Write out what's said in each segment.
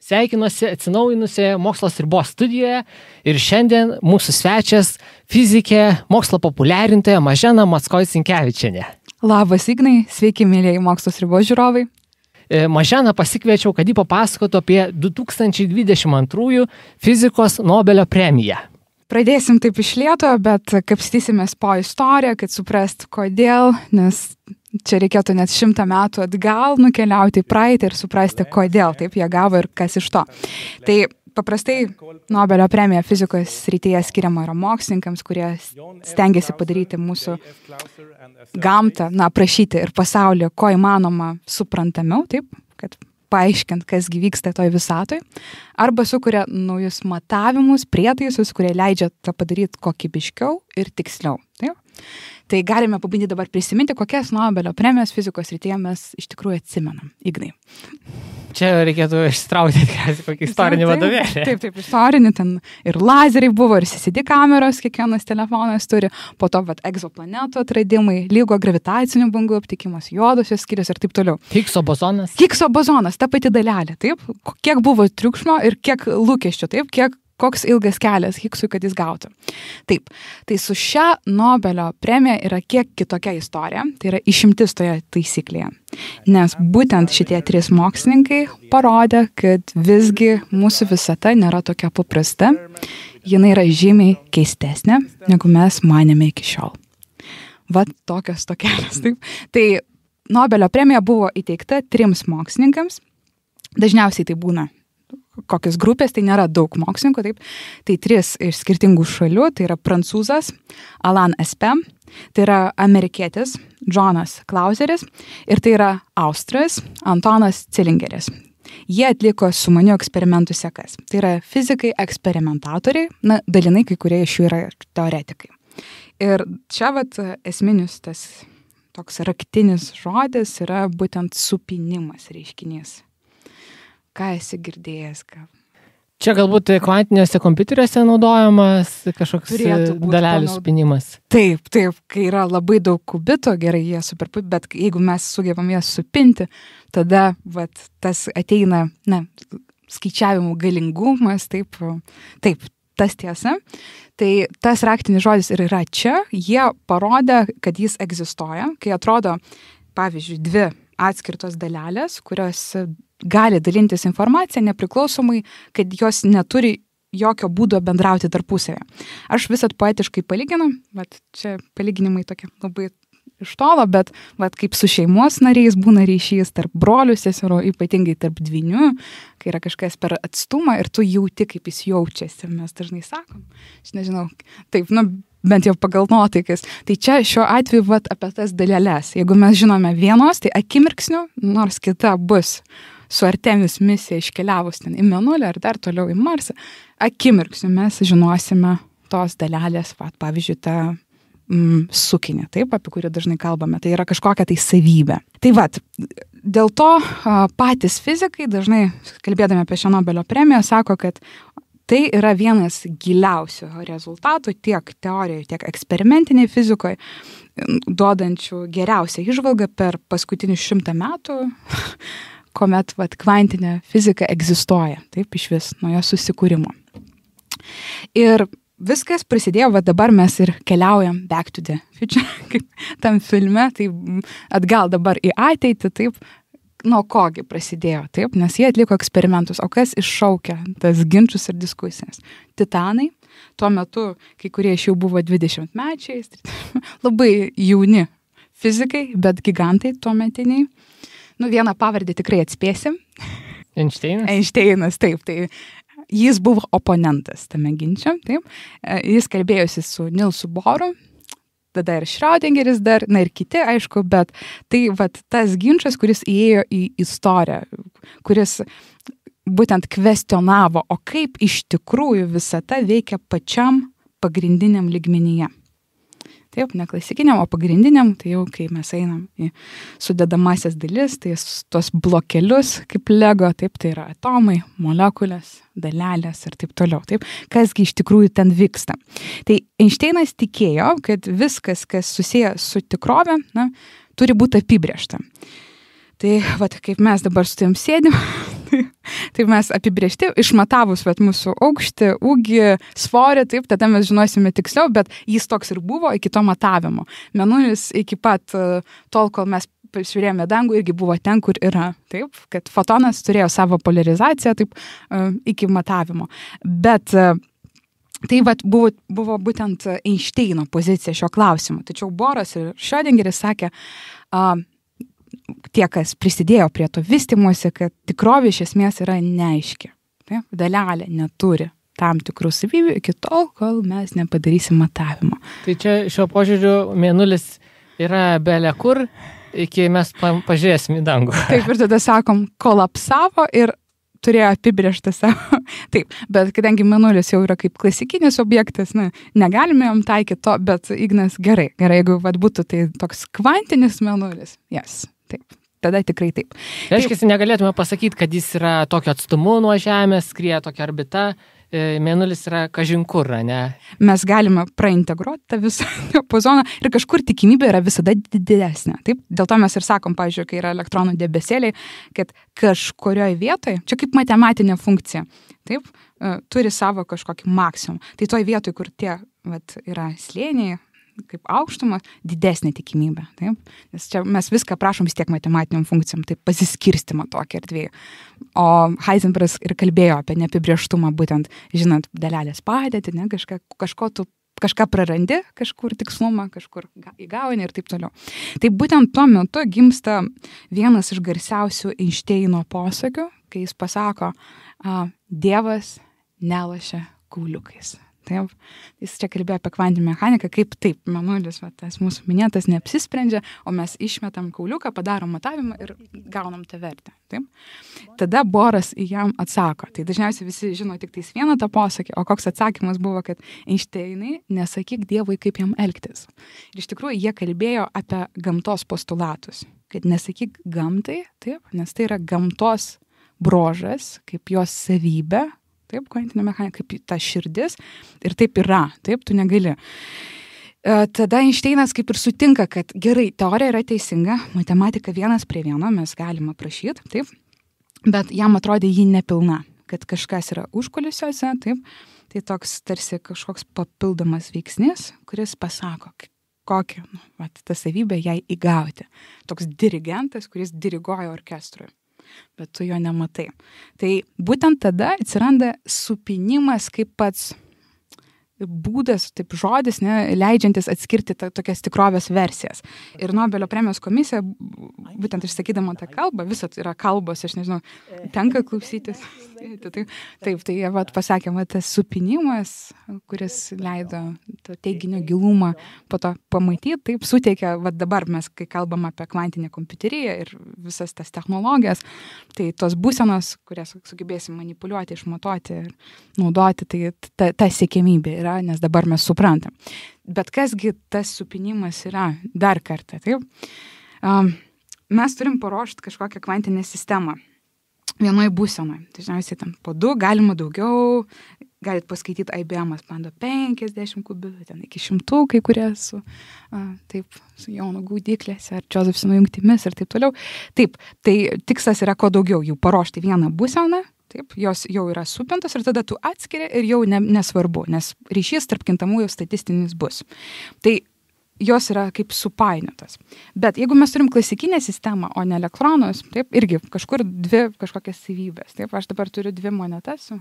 Sveikinuosi atsinaujinusioje Mokslas ribos studijoje ir šiandien mūsų svečias fizikė, mokslo populiarintoja Mažena Mackoit-Sinkevičienė. Labas, Ignai, sveiki, mėlyjei Mokslas ribos žiūrovai. Maženą pasikviečiau, kad ji papasakotų apie 2022 fizikos Nobelio premiją. Pradėsim taip iš lėto, bet kapstysimės po istoriją, kad suprast kodėl, nes čia reikėtų net 100 metų atgal nukeliauti į praeitį ir suprasti, kodėl taip jie gavo ir kas iš to. Tai paprastai Nobelio premija fizikos srityje skiriama yra mokslininkams, kurie stengiasi padaryti mūsų gamtą, aprašyti ir pasaulį, ko įmanoma suprantamiau, taip, kad paaiškint, kas vyksta toj visatoj, arba sukuria naujus matavimus, prietaisus, kurie leidžia tą padaryti kokybiškiau ir tiksliau. Taip? Tai galime pabandyti dabar prisiminti, kokias Nobelio premijos fizikos srityje mes iš tikrųjų atsimenam. Ignai. Čia reikėtų ištraukti kokį istorinį vadovėlį. Taip, istorinį, ten ir lazeriai buvo, ir CCD kameros, kiekvienas telefonas turi, po to egzoplanetų atradimai, lygo gravitacinių bangų aptikimas, juodosios skylės ir taip toliau. Higgso bozonas. Higgso bozonas, ta pati dalelė, taip? Kiek buvo triukšmo ir kiek lūkesčių, taip? Koks ilgas kelias Higgsui, kad jis gautų. Taip, tai su šia Nobelio premija yra kiek kitokia istorija, tai yra išimtis toje taisyklėje. Nes būtent šitie 3 mokslininkai parodė, kad visgi mūsų visata nėra tokia paprasta, jinai yra žymiai keistesnė, negu mes manėme iki šiol. Vat tokios tokelės, taip. Tai Nobelio premija buvo įteikta 3 mokslininkams, dažniausiai tai būna kokios grupės, tai nėra daug mokslininkų, taip. Tai 3 iš skirtingų šalių, tai yra prancūzas Alain Aspect, tai yra amerikietis Jonas Clauseris ir tai yra austras Antonas Zelingeris. Jie atliko sumanių eksperimentų sekas. Tai yra fizikai eksperimentatoriai, dalinai kai kurie iš jų yra teoretikai. Ir čia esminis tas toks raktinis žodis yra būtent supinimas reiškinys. Ką esi girdėjęs? Čia galbūt kvantiniuose kompiuteriuose naudojamas kažkoks dalelių supinimas. Taip, kai yra labai daug kubitų, gerai, jie superpup, bet jeigu mes sugebam jas supinti, tada tas ateina, skaičiavimų galingumas, taip, tas tiesa. Tai tas raktinis žodis ir yra čia, jie parodė, kad jis egzistuoja, kai atrodo, pavyzdžiui, 2 atskirtos dalelės, kurios gali dalintis informaciją nepriklausomai, kad jos neturi jokio būdo bendrauti tarpusavėje. Aš visat poetiškai palyginu, bet čia palyginimai tokie labai iš tolo, bet kaip su šeimos nariais būna ryšys tarp brolių, seserų, ypatingai tarp dvynių, kai yra kažkas per atstumą ir tu jauti, kaip jis jaučiasi. Mes dažnai sakom, aš nežinau, taip, bent jau pagal nuotaikas. Tai čia šiuo atveju apie tas daleles. Jeigu mes žinome vienos, tai akimirksniu, nors kita bus su Artemis misija iškeliavus ten į Mėnulį ar dar toliau į Marsą, akimirksniu mes žinosime tos dalelės, pavyzdžiui, tą sukinį, taip, apie kurį dažnai kalbame. Tai yra kažkokia tai savybė. Tai dėl to patys fizikai dažnai, kalbėdami apie šią Nobelio premiją, sako, kad tai yra vienas giliausių rezultatų tiek teorijoje, tiek eksperimentiniai fizikoje, duodančių geriausią įžvalgą per paskutinius 100 metų, kuomet kvantinė fizika egzistuoja, taip, iš vis nuo jos susikūrimo. Ir viskas prasidėjo, dabar mes ir keliaujam back to the future, kaip tam filme, tai atgal dabar į ateitį, taip, nuo kogi prasidėjo, taip, nes jie atliko eksperimentus, o kas iššaukia tas ginčus ir diskusijas? Titanai, tuo metu kai kurie iš jų buvo 20-mečiais, labai jauni fizikai, bet gigantai tuo metiniai. Vieną pavardę tikrai atspėsim. Einšteinas, taip, tai jis buvo oponentas tame ginče, taip. Jis kalbėjosi su Nilsu Boru, tada ir Schrödingeris dar, ir kiti, aišku, bet tai tas ginčas, kuris įėjo į istoriją, kuris būtent kvestionavo, o kaip iš tikrųjų visata veikia pačiam pagrindiniam lygmenyje. Taip, ne klasikiniam, o pagrindiniam, tai jau kai mes einam į sudedamasias dalis, tai tos blokelius kaip Lego, taip, tai yra atomai, molekulės, dalelės ir taip toliau. Taip, kasgi iš tikrųjų ten vyksta. Tai Einšteinas tikėjo, kad viskas, kas susiję su tikrove, turi būti apibrėžta. Tai vat, kaip mes dabar su tavim sėdim, tai mes apibrėžti, išmatavus vat, mūsų aukštį, ūgį, svorį, taip, tada mes žinosime tiksliau, bet jis toks ir buvo iki to matavimo. Mėnulis iki pat tol, kol mes žiūrėjome dangų, irgi buvo ten, kur yra, taip, kad fotonas turėjo savo polarizaciją, taip, iki matavimo. Bet tai vat, buvo būtent Einšteino pozicija šio klausimu. Tačiau Boras ir Schrödingeris sakė, tie, kas prisidėjo prie to vystymosi, kad tikrovė iš esmės yra neaiški. Taip? Dalelė neturi tam tikrų savybių iki tol, kol mes nepadarysim matavimo. Tai čia šio požiūriu Mėnulis yra belia kur, iki mes pažiūrėsim į dangų. Taip, ir tada sakom, kolapsavo ir turėjo apibrėžtą savo. Taip, bet kadangi Mėnulis jau yra kaip klasikinis objektas, negalime jam taikyti to, bet Ignas gerai, jeigu būtų tai toks kvantinis Mėnulis, taip, tada tikrai taip. Reiškia, negalėtume pasakyti, kad jis yra tokio atstumu nuo Žemės, skrieja tokia orbita, Mėnulis yra kažinkur, ne? Mes galime praintegruoti tą visą diapazoną ir kažkur tikimybė yra visada didesnė. Taip? Dėl to mes ir sakom, pavyzdžiui, kai yra elektronų debesėliai, kad kažkurioje vietoje, čia kaip matematinė funkcija, taip, turi savo kažkokį maksimum. Tai toj vietoj, kur tie yra slėniai, kaip aukštumas, didesnė tikimybė. Taip? Nes čia mes viską prašom vis tiek matematiniam funkcijom, taip pasiskirstimą tokį erdvėje. O Heisenbergas ir kalbėjo apie neapibrėžtumą, būtent žinant dalelės padėtį, kažką prarandi, kažkur tikslumą, kažkur įgauni ir taip toliau. Tai būtent tuo metu gimsta vienas iš garsiausių Einšteino posakių, kai jis pasako, Dievas nelošia kauliukais. Taip, jis čia kalbėjo apie kvantinę mechaniką, kaip taip, Mėnulis, tas mūsų minėtas, neapsisprendžia, o mes išmetam kauliuką, padarom matavimą ir gaunam tą vertę. Taip? Tada Boras jam atsako. Tai dažniausiai visi žino tik tais vieną tą posakį, o koks atsakymas buvo, kad Einšteinai, nesakyk Dievui, kaip jam elgtis. Ir iš tikrųjų jie kalbėjo apie gamtos postulatus, kad nesakyk gamtai, taip, nes tai yra gamtos bruožas, kaip jos savybė, taip, kvantinė mechanika, kaip ta širdis, ir taip yra, taip, tu negali. Tada Einšteinas kaip ir sutinka, kad gerai, teorija yra teisinga, matematika 1:1 mes galime aprašyti, taip, bet jam atrodė ji nepilna, kad kažkas yra užkulisiuose, taip, tai toks tarsi kažkoks papildomas veiksnis, kuris pasako, kokią, tą savybę jai įgauti. Toks dirigentas, kuris diriguoja orkestrui. Bet tu jo nematai. Tai būtent tada atsiranda supinimas kaip pats būdas, taip žodis, leidžiantis atskirti tokias tikrovės versijas. Ir Nobelio premijos komisija, būtent išsakydama tą kalbą, visat yra kalbos, aš nežinau, tenka klausytis. Taip, tai jie pasakė, tas supinimas, kuris leido to teiginio gilumą po to pamatyti, taip suteikia, dabar mes, kai kalbam apie kvantinę kompiuteriją ir visas tas technologijas, tai tos būsenos, kurias sugebėsim manipuliuoti, išmatuoti ir naudoti, tai ta siekiamybė yra, nes dabar mes suprantam. Bet kasgi tas supinimas yra dar kartą, taip? Mes turim paruošti kažkokią kvantinę sistemą vienoj būsenoj. Dažniausiai ten po 2, galima daugiau, galit paskaityti IBM bando 50 kubitų, ten iki 100, kai kurie su Jono gaudyklėse ar Josephsono jungtimis ir taip toliau. Taip, tai tikslas yra kuo daugiau jų paruošti vieną būseną, taip, jos jau yra supintos ir tada tu atskiri ir jau nesvarbu, nes ryšys tarp kintamųjų statistinis bus. Tai jos yra kaip supainiotas. Bet jeigu mes turim klasikinę sistemą, o ne elektronus, taip, irgi kažkur 2 kažkokias savybės. Taip, aš dabar turiu 2 monetas.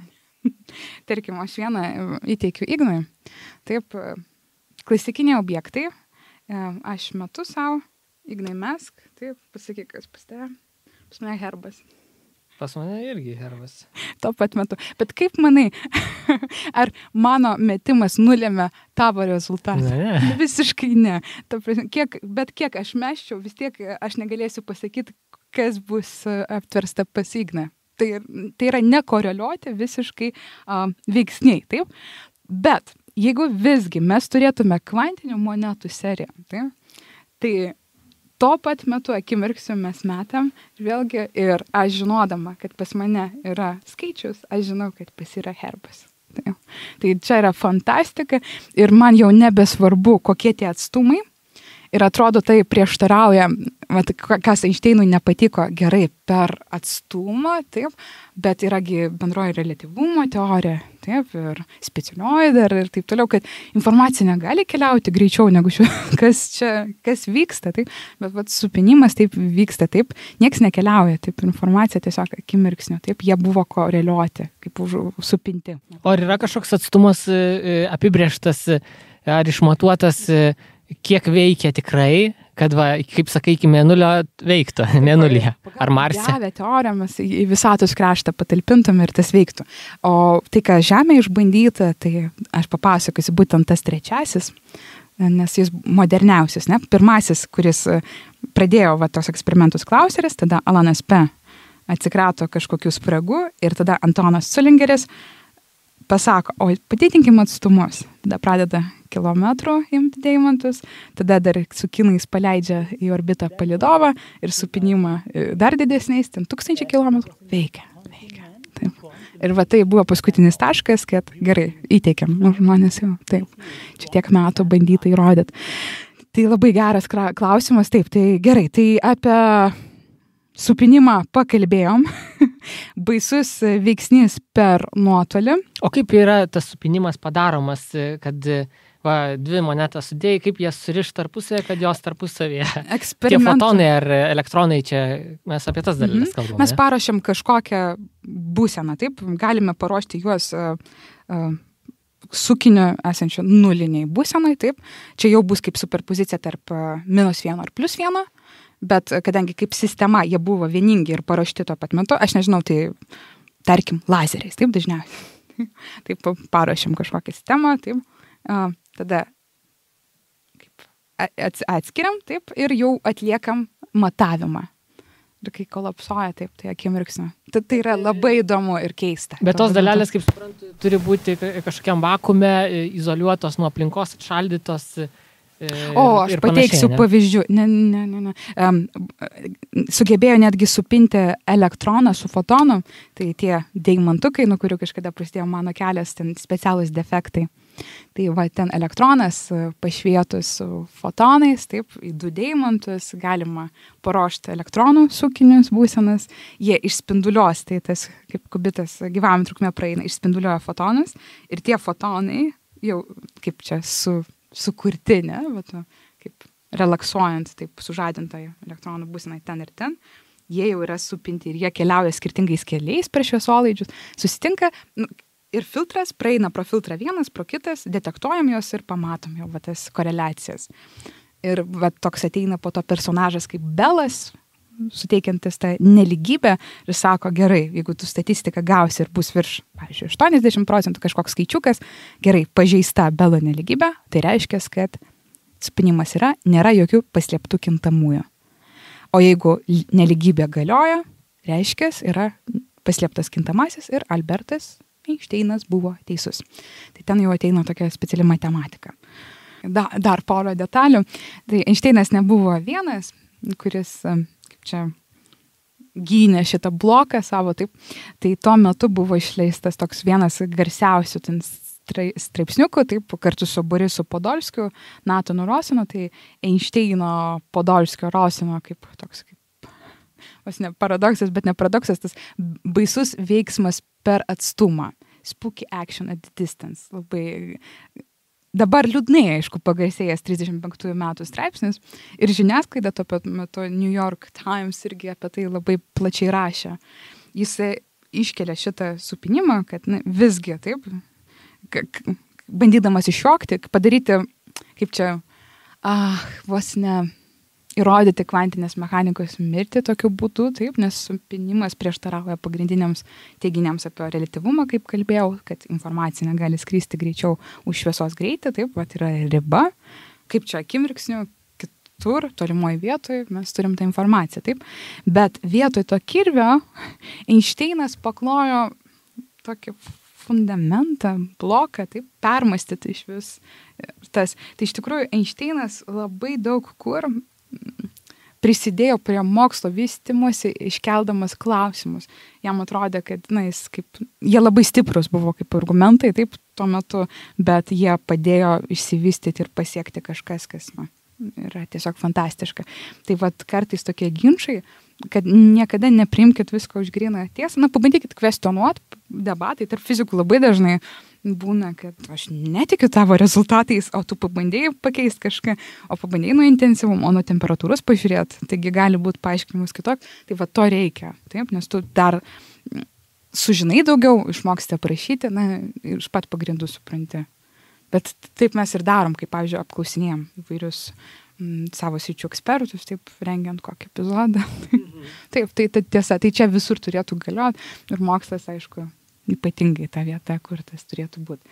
Tarkim, aš vieną įteikiu Ignui. Taip, klasikiniai objektai. Aš metu savo, Ignai mesk. Taip, pasakyk, kas pas tave. Pas mane herbas. Pas mane irgi herbas. Tuo pat metu. Bet kaip manai, ar mano metimas nulėmė tavo rezultatą? Ne. Visiškai ne. Bet kiek aš meščiau, vis tiek aš negalėsiu pasakyti, kas bus aptversta pas Igną. Tai yra nekoreliuoti visiškai veiksniai, taip? Bet jeigu visgi mes turėtume kvantinių monetų seriją, tai tuo pat metu akimirksiu mes metam, vėlgi, ir aš žinodama, kad pas mane yra skaičius, aš žinau, kad pas yra herbas. Tai čia yra fantastika ir man jau nebesvarbu, kokie tie atstumai Ir atrodo, tai prieštarauja, kas Einšteinui nepatiko gerai per atstumą, taip, bet yragi bendroji reliatyvumo teorija, taip, ir specialioji dar ir taip toliau, kad informacija negali keliauti greičiau negu kas vyksta, taip, bet supinimas taip vyksta, taip, nieks nekeliauja, taip, informacija tiesiog akimirksniu, taip, jie buvo koreliuoti, kaip supinti. O ar yra kažkoks atstumas apibrėžtas ar išmatuotas, kiek veikia tikrai, kad, kaip sakai, iki Mėnulio veiktų, Mėnulyje ar Marse? Pagal teoriją mes į visatos kraštą patalpintum ir tas veiktų. O tai, ką Žemė išbandyta, tai aš papasakosiu būtent tas trečiasis, nes jis moderniausias, ne? Pirmasis, kuris pradėjo tos eksperimentus Klauseris, tada Alanas P. atsikrato kažkokių spragų ir tada Antonas Zulingeris pasako, o padidinkim atstumus. Tada pradeda kilometrų imti deimantus, tada dar su kinais paleidžia į orbitą palidovą ir supinimą dar didesniais, ten 1000 kilometrų. Veikia. Taip. Ir tai buvo paskutinis taškas, kad gerai, įteikiam, žmonės jau, taip, čia tiek metų bandyta įrodyti. Tai labai geras klausimas, taip, tai gerai, tai apie supinimą pakalbėjom, baisus veiksnys per nuotolį. O kaip yra tas supinimas padaromas, kad dvi monetas sudėjai, kaip jas suriš tarpusavėje, kad jos tarpusavėje? Tie fotonai ar elektronai, čia mes apie tas dalykas kalbame. Mes paruošiam kažkokią būseną, taip, galime paruošti juos sukiniu esančiu nuliniai būsenai, taip, čia jau bus kaip superpozicija tarp -1 ir +1, bet kadangi kaip sistema jie buvo vieningi ir paruošti tuo pat metu, aš nežinau, tai tarkim lazeriais, taip dažniausiai. Taip paruošiam kažkokią sistemą, taip, tada kaip atskiriam, taip, ir jau atliekam matavimą. Ir kai kolapsuoja, taip, tai akimirksniu. Tai yra labai įdomu ir keista. Bet tos dalelės, kaip suprantu, turi būti kažkokiam vakuume, izoliuotos nuo aplinkos, atšaldytos. Aš pateiksiu pavyzdžių. Ne. Sugebėjo netgi supinti elektroną su fotonu, tai tie deimantukai, nuo kurių kažkada prasidėjo mano kelias, ten specialūs defektai. Tai ten elektronas pašvietus su fotonais, taip, į 2 deimantus galima paruošti elektronų sukinius būsenas, jie išspinduliuos, tai tas kaip kubitas gyvavimo trukmė praeina, išspinduliuoja fotonus ir tie fotonai jau kaip čia sukurti, ne, kaip relaksuojant, taip sužadintai elektronų būsenai ten ir ten, jie jau yra supinti ir jie keliauja skirtingais keliais per šviesolaidžius, susitinka ir filtras praeina pro filtrą vienas, pro kitas, detektuojam juos ir pamatom jau tas koreliacijas. Ir toks ateina po to personažas kaip Belas, suteikiantis tą neligybę ir sako, gerai, jeigu tu statistiką gausi ir bus virš, pavyzdžiui, 80% kažkoks skaičiukas, gerai, pažeista Belo neligybė, tai reiškia, kad spinimas nėra jokių paslėptų kintamųjų. O jeigu neligybė galioja, reiškia, yra paslėptas kintamasis ir Albertas Einšteinas buvo teisus. Tai ten jau ateina tokia speciali matematika. Dar porą detalių. Tai Einšteinas nebuvo vienas, kuris kaip čia gynė šitą bloką savo, taip. Tai tuo metu buvo išleistas toks vienas garsiausių straipsniukų, taip, kartu su Borisu Podolskiu, Natanu Rosinu, tai Einšteino, Podolskio, Rosino kaip toks ne paradoksas, bet ne paradoksas, tas baisus veiksmas per atstumą. Spooky action at distance. Labai dabar liūdnai, aišku, pagarsėjęs 35 metų straipsnis ir žiniasklaida tuo pat metu New York Times irgi apie tai labai plačiai rašė. Jis iškelia šitą supinimą, kad visgi, taip, bandydamas iššokti, padaryti, kaip čia, vos ne įrodyti kvantinės mechanikos mirtį tokiu būdu, taip, nes supinimas prieštarauja pagrindiniams teiginiams apie reliatyvumą, kaip kalbėjau, kad informacija negali skristi greičiau už šviesos greitį, taip, yra riba, kaip čia akimirksniu, kitur, tolimoje vietoje mes turim tą informaciją, taip, bet vietoj to kirvio Einšteinas paklojo tokį fundamentą, bloką, taip, permastyti iš vis tas. Tai iš tikrųjų Einšteinas labai daug kur prisidėjo prie mokslo vystymosi, iškeldamas klausimus. Jam atrodė, kad jie labai stiprus buvo kaip argumentai, taip, tuo metu, bet jie padėjo išsivystyti ir pasiekti kažkas, kas yra tiesiog fantastiška. Tai vat kartais tokie ginčai, kad niekada nepriimkit visko už gryną tiesą, pabandykit kvestionuoti, debatai tarp fizikų labai dažnai būna, kad aš netikiu tavo rezultatais, o tu pabandėjai pakeisti kažką, o pabandėjai nuo intensyvumo, o nuo temperatūros pažiūrėti, taigi gali būti paaiškinimus kitok, tai va to reikia, taip, nes tu dar sužinai daugiau, išmoksite prašyti, iš pat pagrindų supranti. Bet taip mes ir darom, kaip, pavyzdžiui, apklausinėjom įvairius savo sričių ekspertus, taip, rengiant kokį epizodą. Taip, tai tiesa, tai čia visur turėtų galioti ir mokslas, aišku, ypatingai ta vieta, kur tas turėtų būti.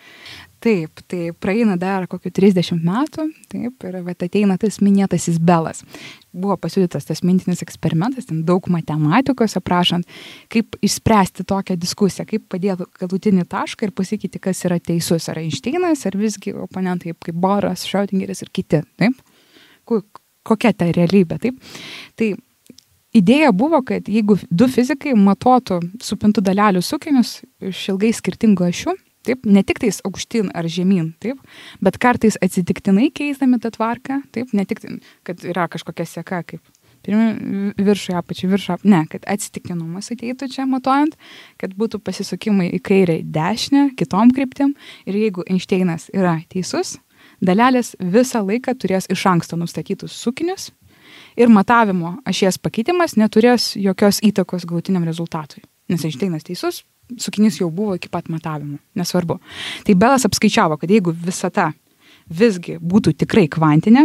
Taip, tai praeina dar kokių 30 metų, taip, ir ateina tas minėtasis Belas. Buvo pasiūlytas tas mintinis eksperimentas, ten daug matematikos aprašant, kaip išspręsti tokią diskusiją, kaip padėti galutinį tašką ir pasakyti, kas yra teisus, ar Einšteinas, ar visgi oponentai kaip Boras, Schrödingeris ir kiti, taip. Kokia ta realybė, taip. Tai idėja buvo, kad jeigu du fizikai matuotų supintų dalelių sukinius iš ilgai skirtingų ašių, taip, ne tik tais aukštyn ar žemyn, taip, bet kartais atsitiktinai keisdami tą tvarką, taip, ne tik, kad yra kažkokia seka, kaip viršų, apačių, ne, kad atsitiktinumas ateitų čia matuojant, kad būtų pasisukimai į kairę, dešinę, kitom kryptim ir jeigu Einšteinas yra teisus, dalelės visą laiką turės iš anksto nustatytus sukinius ir matavimo ašies pakeitimas neturės jokios įtakos galutiniam rezultatui. Nes Einšteinas teisus, sukinys jau buvo iki pat matavimo, nesvarbu. Tai Belas apskaičiavo, kad jeigu visata visgi būtų tikrai kvantinė,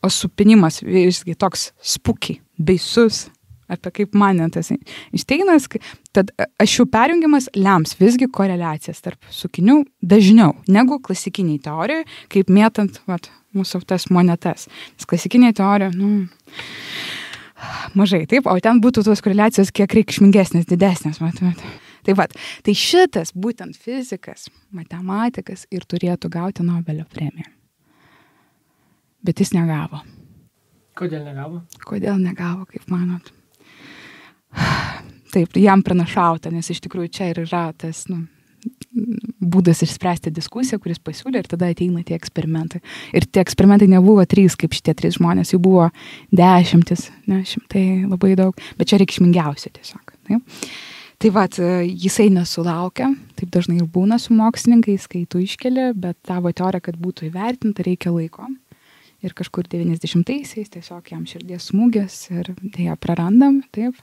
o supinimas visgi toks spooky, baisus, apie kaip manė tas Einšteinas, tad ašių perjungimas lems visgi koreliacijas tarp sukinių dažniau negu klasikiniai teorijai, kaip mėtant mūsų tas monetas. Nes klasikiniai teorija, mažai, taip, o ten būtų tos koreliacijos kiek reikšmingesnės, didesnės. Tai šitas būtent fizikas, matematikas ir turėtų gauti Nobelio premiją. Bet jis negavo. Kodėl negavo? Kodėl negavo, kaip manot? Taip, jam pranašauta, nes iš tikrųjų čia ir yra tas būdas išspręsti diskusiją, kuris pasiūlė ir tada ateina tie eksperimentai. Ir tie eksperimentai nebuvo 3, kaip šitie 3 žmonės, jų buvo 10, ne, 100, labai daug, bet čia reikšmingiausia tiesiog. Taip. Tai jisai nesulaukia, taip dažnai ir būna su mokslininkais, kai tu iškeli, bet tavo teorija, kad būtų įvertinta, reikia laiko. Ir kažkur 90-aisiais tiesiog jam širdies smūgis ir ją prarandam, taip.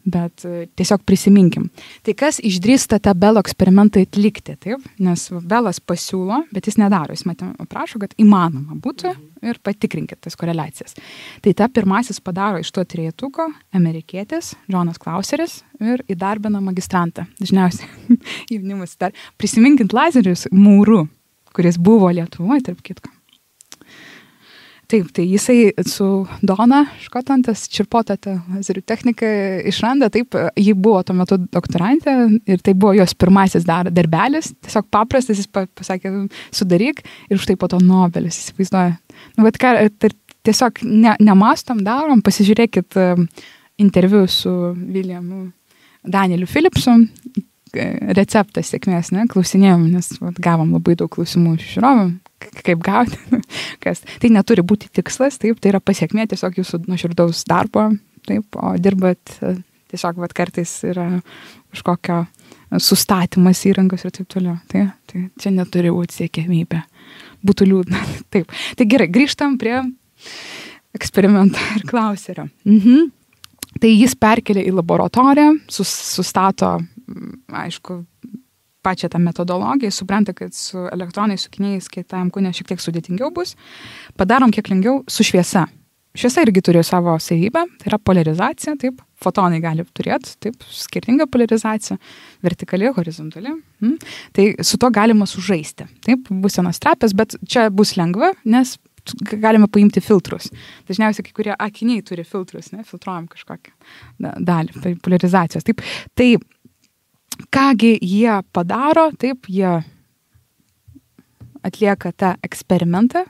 Bet tiesiog prisiminkim. Tai kas išdrįsta tą Belo eksperimentą atlikti, taip? Nes Belas pasiūlo, bet jis nedaro. Jis prašo, kad įmanoma būtų ir patikrinkit tas koreliacijas. Tai ta pirmasis padaro iš to trejetuko amerikietis, Džonas Klauseris ir įdarbina magistrantą. Dažniausiai jaunimas dar prisiminkint Lazerius Mūru, kuris buvo Lietuvoje, tarp kitko. Taip, tai jisai su Dona Škotlandas čirpotą tą lazerių techniką išranda, taip, ji buvo tuo metu doktorantė ir tai buvo jos pirmasis darbelis, tiesiog paprastas, jis pasakė, sudaryk ir štai po to Nobelis, įsivaizduoja. Tiesiog nemastom, darom, pasižiūrėkit interviu su Williamu Danieliu Philipsu, receptas sėkmės, ne, klausinėjom, nes gavom labai daug klausimų iš žiūrovų, kaip gauti, kas. Tai neturi būti tikslas, taip, tai yra pasiekmė tiesiog jūsų nuoširdaus darbo, taip, o dirbat tiesiog kartais yra kažkokio sustatymas įrangos ir taip toliau. Tai čia neturi būti siekiamybė. Būtų liūdna. Taip. Tai gerai, grįžtam prie eksperimento ir Klauserio. Tai jis perkelia į laboratoriją, sustato, aišku, pačią tą metodologiją, supranta, kad su elektronais sukiniais kietajam kūne šiek tiek sudėtingiau bus. Padarom kiek lengviau su šviesa. Šviesa irgi turi savo savybę, tai yra polarizacija, taip, fotonai gali turėti, taip, skirtingą polarizaciją, vertikali, horizontali. Tai su to galima sužaisti, taip, bus vienas trapės, bet čia bus lengva, nes galime paimti filtrus. Dažniausiai kai kurie akiniai turi filtrus, ne, filtruojam kažkokią dalį, polarizacijos. Taip, tai kągi jie padaro, taip, jie atlieka tą eksperimentą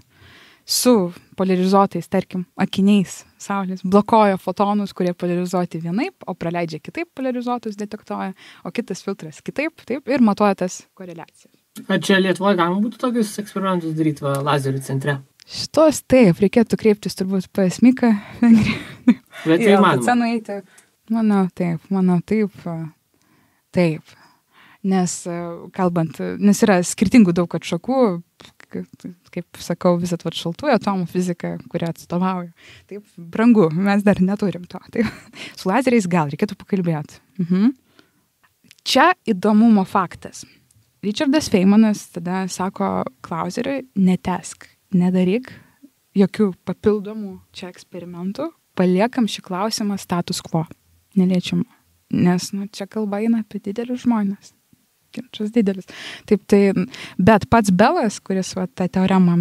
su polarizuotais, tarkim, akiniais saulės, blokuoja fotonus, kurie polarizuoti vienaip, o praleidžia kitaip polarizuotus detektuoja, o kitas filtras kitaip, taip, ir matuoja tas koreliacijas. Ar čia Lietuvoje galima būtų tokius eksperimentus daryti lazerių centre? Šitos taip, reikėtų kreiptis turbūt pas Miką. Bet tai manau, taip. Nes kalbant, nes yra skirtingų daug atšakų, kaip sakau, visat šaltųjų atomų fizika, kurią atstovauju. Taip, brangu, mes dar neturim to. Taip. Su lazeriais gal reikėtų pakalbėti. Čia įdomumo faktas. Richardas Feynmanas tada sako Clauseriui, netesk, nedaryk jokių papildomų čia eksperimentų, paliekam šį klausimą status quo, neliečiamą. Nes čia kalba eina apie didelius žmonės. Ginčas didelis. Taip, bet pats Belas, kuris tą teoremą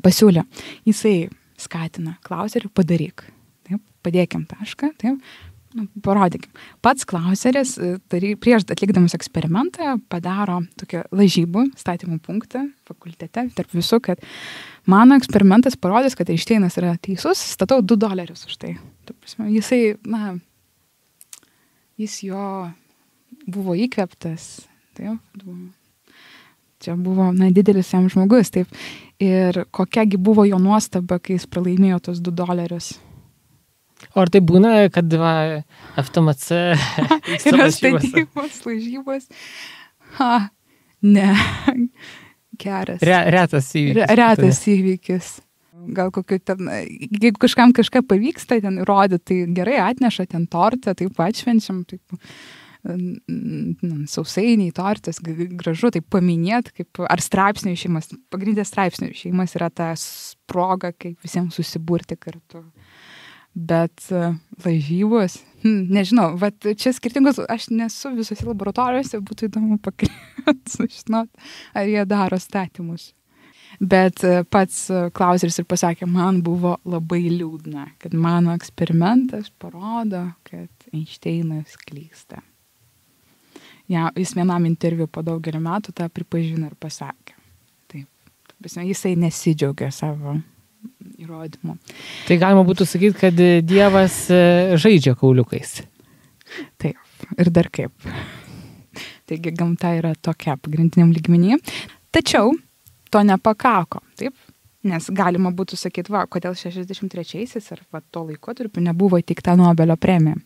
pasiūlė, jisai skatina Clauserių padaryk. Taip, padėkim tašką, taip. Parodykim. Pats Clauseris prieš atlikdamas eksperimentą padaro tokią lažybų statymų punktą fakultete tarp visų, kad mano eksperimentas parodys, kad Einšteinas yra teisus, statau $2 už tai. Jisai, jis jo buvo įkvėptas. Taip, čia buvo didelis jam žmogus. Taip. Ir kokiagi buvo jo nuostaba, kai jis pralaimėjo tos $2. O ar tai būna, kad FTMC yra statybos, lažybos? Ne. Geras. Retas įvykis. Retas įvykis. Gal kokiu ten, jeigu kažkam kažką pavyksta ten įrodyti, tai gerai atneša ten tortą, taip atšvenčiam, taip sausainiai, tortas, gražu, taip paminėti, kaip, ar straipsnių išėjimas. Pagrindė straipsnių išėjimas yra ta proga, kaip visiems susiburti kartu. Bet lažybos, nežinau, čia skirtingos, aš nesu visose laboratorijose, būtų įdomu pakalbėti, sužinot, ar jie daro statymus. Bet pats Clauseris ir pasakė, man buvo labai liūdna, kad mano eksperimentas parodo, kad Einšteinas klysta. Ja, jis vienam interviu po daugelį metų tą pripažino ir pasakė. Taip, jisai nesidžiaugia savo įrodymų. Tai galima būtų sakyti, kad Dievas žaidžia kauliukais. Taip, ir dar kaip. Taigi gamta yra tokia pagrindiniam lygmenyje. Tačiau to nepakako, taip? Nes galima būtų sakyti, kodėl 63-aisiais ar to laikotarpiu nebuvo įteikta Nobelio premija.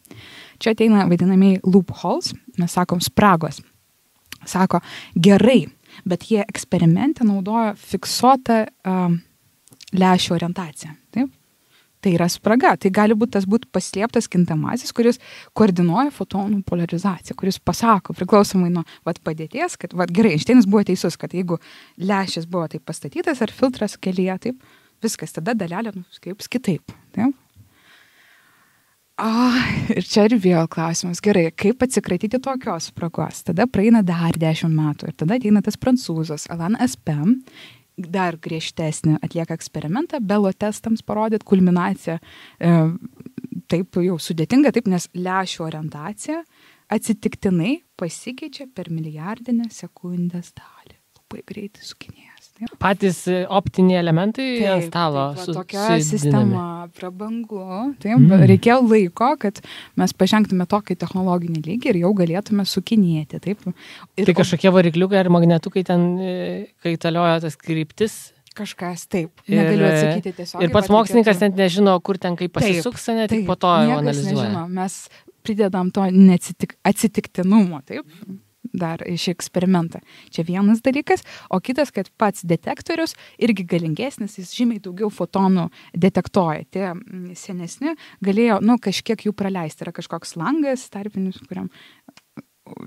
Čia ateina vadinamieji loopholes, mes sakom spragos. Sako, gerai, bet jie eksperimente naudojo fiksuotą lęšių orientaciją. Taip? Tai yra spraga. Tai gali būti tas paslėptas kintamasis, kuris koordinuoja fotonų polarizaciją, kuris pasako, priklausomai nuo padėties, kad gerai, Einšteinas buvo teisus, kad jeigu lęšis buvo taip pastatytas ar filtras kelyje, taip, viskas, tada dalelė kaip kitaip. Taip? Ir čia ir vėl klausimas. Gerai, kaip atsikratyti tokios spragos? Tada praeina dar 10 metų ir tada ateina tas prancūzas Alain Aspect, dar griežtesnį atlieka eksperimentą, Belo testams parodyti kulminaciją, taip jau sudėtinga, taip, nes lęšių orientacija atsitiktinai pasikeičia per milijardinę sekundės dalį. Labai greitai sukinėjęs. Taip. Patys optiniai elementai ant stalo. Tokia sistema prabangu. Taip, reikėjo laiko, kad mes pažengtume tokį technologinį lygį ir jau galėtume sukinėti. Taip. Tai kažkokie varikliukai ar magnetukai ten kaitalioja tas kryptis? Kažkas, taip. Negaliu atsakyti tiesiog. Ir pats mokslininkas net nežino, kur ten kaip pasisuks, net tik po to jau analizuoja. Nežino. Mes pridedam to atsitiktinumo, taip. Dar iš eksperimentą. Čia vienas dalykas, o kitas, kad pats detektorius irgi galingesnis, jis žymiai daugiau fotonų detektuoja. Tie senesni galėjo, kažkiek jų praleisti. Yra kažkoks langas tarpinis, kuriam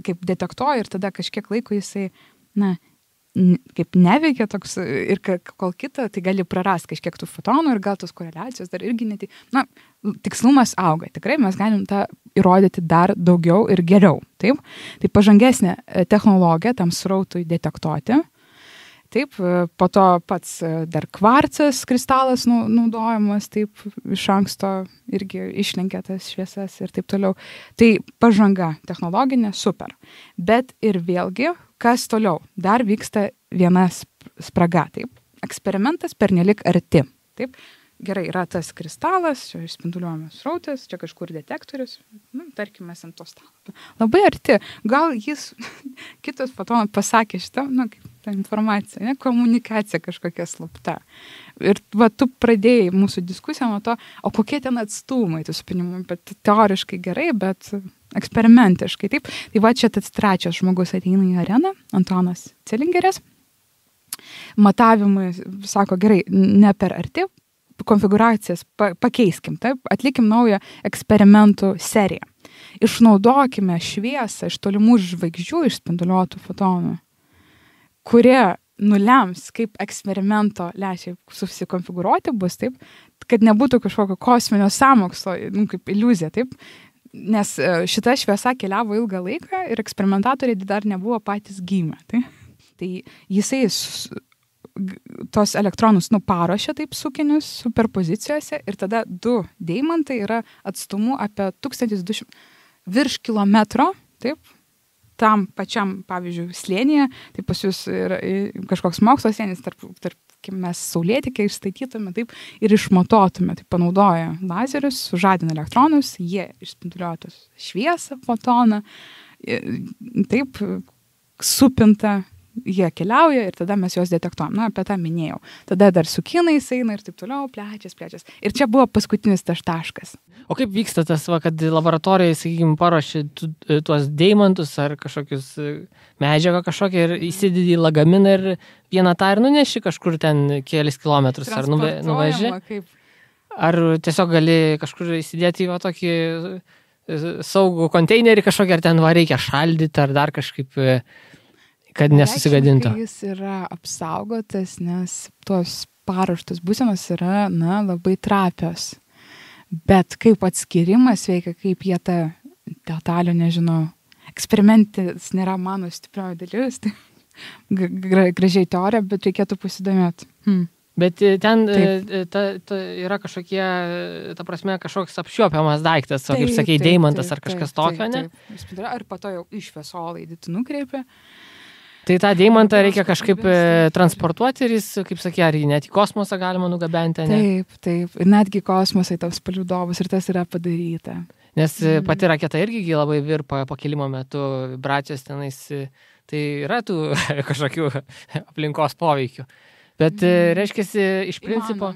kaip detektuoja ir tada kažkiek laiko jisai, kaip neveikia toks ir kol kita, tai gali prarasti kažkiek tų fotonų ir gal tos koreliacijos dar irgi tikslumas auga. Tikrai mes galim tą įrodyti dar daugiau ir geriau. Taip? Tai pažangesnė technologija tam srautui detektuoti. Taip, po to pats dar kvarcas kristalas naudojamas, taip iš anksto irgi išlenkia tas šviesas ir taip toliau. Tai pažanga technologinė super. Bet ir vėlgi, kas toliau? Dar vyksta viena spraga, taip. Eksperimentas pernelik arti, taip. Gerai, yra tas kristalas, čia išspinduliuojamas srautas, čia kažkur detektorius, tarkime, ant to stalo. Labai arti. Gal jis kitas fotonas pasakė šitą, ta informacija, ne, komunikacija kažkokia slapta. Ir va, tu pradėjai mūsų diskusiją nuo to, o kokie ten atstumai tų supinimų, bet teoriškai gerai, bet eksperimentiškai, taip. Tai va, čia tas trečias žmogus ateina į areną, Antonas Celingeris. Matavimai, sako, gerai, ne per arti, konfiguracijas pakeiskim, taip, atlikim naują eksperimentų seriją. Išnaudokime šviesą iš tolimų žvaigždžių išspinduliuotų fotonų, kurie nulems, kaip eksperimento lęšiai susikonfigūruoti bus, taip, kad nebūtų kažkokio kosminio sąmokslo, kaip iliuzija, taip, nes šita šviesa keliavo ilgą laiką ir eksperimentatoriai dar nebuvo patys gimę, taip. Tai jisai tos elektronus paruošia taip sukinius superpozicijose ir tada 2 deimantai yra atstumu apie 1200 virš kilometro, taip, tam pačiam, pavyzdžiui, slėnyje, tai pas jūs yra kažkoks mokslo slėnis, tarp mes saulėtekę išstatytume, taip, ir išmatuotume, taip, panaudoja lazerius, sužadina elektronus, jie išspinduliuoja šviesą, fotoną, taip, supinta, jie keliauja ir tada mes juos detektuojam. Na, apie tą minėjau. Tada dar su kinais eina ir taip toliau, plečias. Ir čia buvo paskutinis tas taškas. O kaip vyksta tas, kad laboratorijai, sakykime, paruoši tuos deimantus ar kažkokius medžiagą kažkokią ir įsidedi į lagaminą ir vieną tą ir nuneši kažkur ten kelis kilometrus ar nuveži? Ar tiesiog gali kažkur įsidėti į tokį saugų konteinerį kažkokį, ar ten reikia šaldyti ar dar kažkaip, kad nesusigadintų. Jis yra apsaugotas, nes tos paruoštos būsenos yra, labai trapios. Bet kaip atskirimas veikia, kaip jie tą detalių, nežinau, eksperimentis nėra mano stiprioji dalis, tai gražiai teorija, bet reikėtų pasidomėti. Bet ten yra kažkokie, ta prasme, kažkoks apčiuopiamas daiktas, kaip sakei, deimantas ar kažkas tokio, ne? Ar po to jau iš šviesolaidį tu nukreipi. Tai tą deimantą reikia kažkaip transportuoti ir jis, kaip sakė, ar jį net į kosmosą galima nugabenti, ne? Taip. Ir netgi kosmosai taps palydovus ir tas yra padaryta. Nes pati raketa irgi labai virpa pakilimo metu, vibracijos tenais, tai yra tų kažkokių aplinkos poveikių. Bet reiškiasi, iš principo...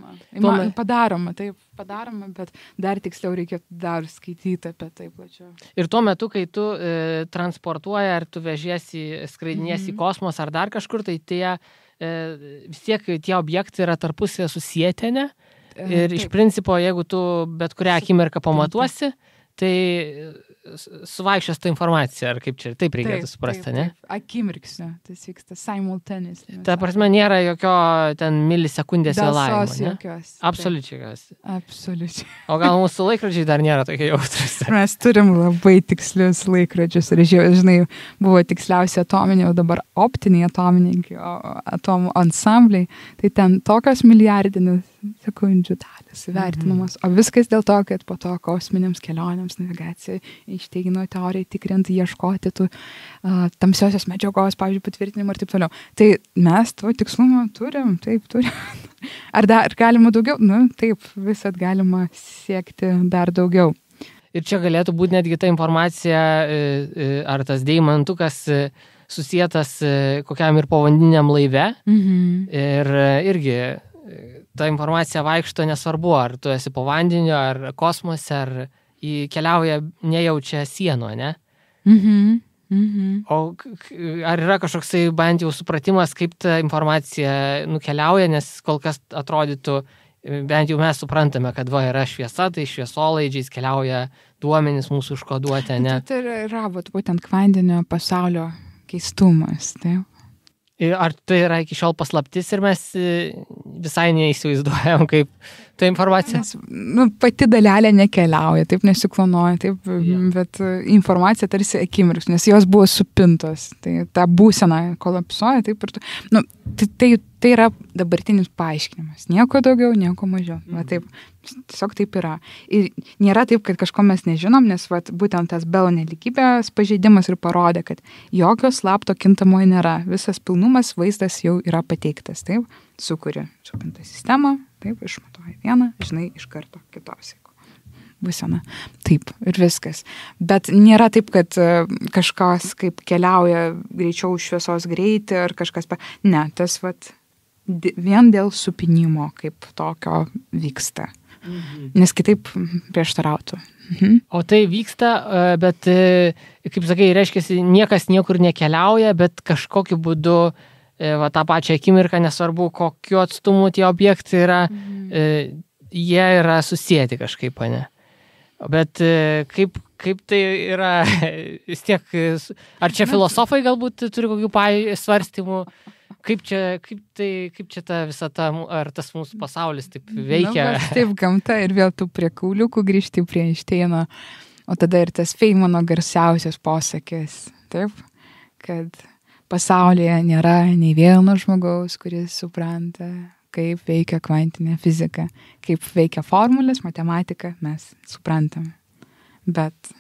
Padaroma, bet dar tiksliau reikia dar skaityti apie tai plačiau. Ir tuo metu, kai tu transportuoji, ar tu vežiesi, skraidiniesi į kosmosą ar dar kažkur, tai vis tiek tie objektai yra tarpusavėje susieti, ne? Ir iš principo, jeigu tu bet kurią akimirką pamatuosi, tai suvaikščios tą informaciją, ar kaip čia, taip reikėtų suprasti, ne? Akimirksnio, tas vyksta simultaneously. Ta prasme, nėra jokio ten milisekundės vėlavimo, ne? Jokios. Absoliučiai. O gal mūsų laikrodžiai dar nėra tokie jautrus? Mes turim labai tikslius laikrodžius ir žinai, buvo tiksliausi atominiai, o dabar optiniai atomų ansambliai, tai ten tokios milijardinės sekundžių dalys vertinamos. O viskas dėl to, kad po to kosminėms kelionėms, navigacijai, Einšteino teorijai tikrinti, ieškoti tų tamsiosios medžiagos, pavyzdžiui, patvirtinimų ir taip toliau. Tai mes to tikslumo turim. Ar dar galima daugiau? Taip, visat galima siekti dar daugiau. Ir čia galėtų būti netgi ta informacija, ar tas deimantukas susietas kokiam ir povandeniniam laive. Ir irgi ta informacija vaikšto nesvarbu, ar tu esi po vandeniu, ar kosmose, ar keliauja nejaučia sienų, ne? O ar yra kažkoksai bent jau supratimas, kaip ta informacija nukeliauja, nes kol kas atrodytų, bent jau mes suprantame, kad yra šviesa, tai šviesolaidžiais keliauja duomenys mūsų užkoduoti, ne? Tai yra būtent kvantinio pasaulio keistumas, taip. Ar tai yra iki šiol paslaptis ir mes visai neįsivaizduojam, kaip ta informacija? Pati dalelė nekeliauja, taip nesiklonuoja, taip, bet informacija tarsi akimirks, nes jos buvo supintos. Tai ta būsena kolapsuoja, taip ir tai yra dabartinis paaiškinimas. Nieko daugiau, nieko mažiau. Taip, tiesiog taip yra. Ir nėra taip, kad kažko mes nežinom, nes būtent tas Belo nelygybės pažeidimas ir parodė, kad jokio slapto kintamojo nėra. Visas pilnumas vaizdas jau yra pateiktas. Taip, sukuri supintą sistemą, taip, išmatuoji vieną, žinai, iš karto kitos. būsena. Taip, ir viskas. Bet nėra taip, kad kažkas kaip keliauja greičiau šviesos greitį ar kažkas. Ne, tas vien dėl supinimo kaip tokio vyksta. Nes kitaip prieštarautų. O tai vyksta, bet, kaip sakai, reiškia, niekas niekur nekeliauja, bet kažkokiu būdu tą pačią akimirką, nesvarbu, kokiu atstumu tie objektai yra, jie yra susijęti kažkaip, ne? Bet kaip tai yra, vis tiek, ar čia filosofai galbūt turi kokių svarstymų, kaip čia ta visata, ar tas mūsų pasaulis taip veikia? Taip, gamta ir vėl tu prie kauliukų grįžti prie Einšteino, o tada ir tas Feynmano garsiausias posakis, taip, kad pasaulyje nėra nei vieno žmogaus, kuris supranta, kaip veikia kvantinė fizika, kaip veikia formulės, matematika, mes suprantam. Bet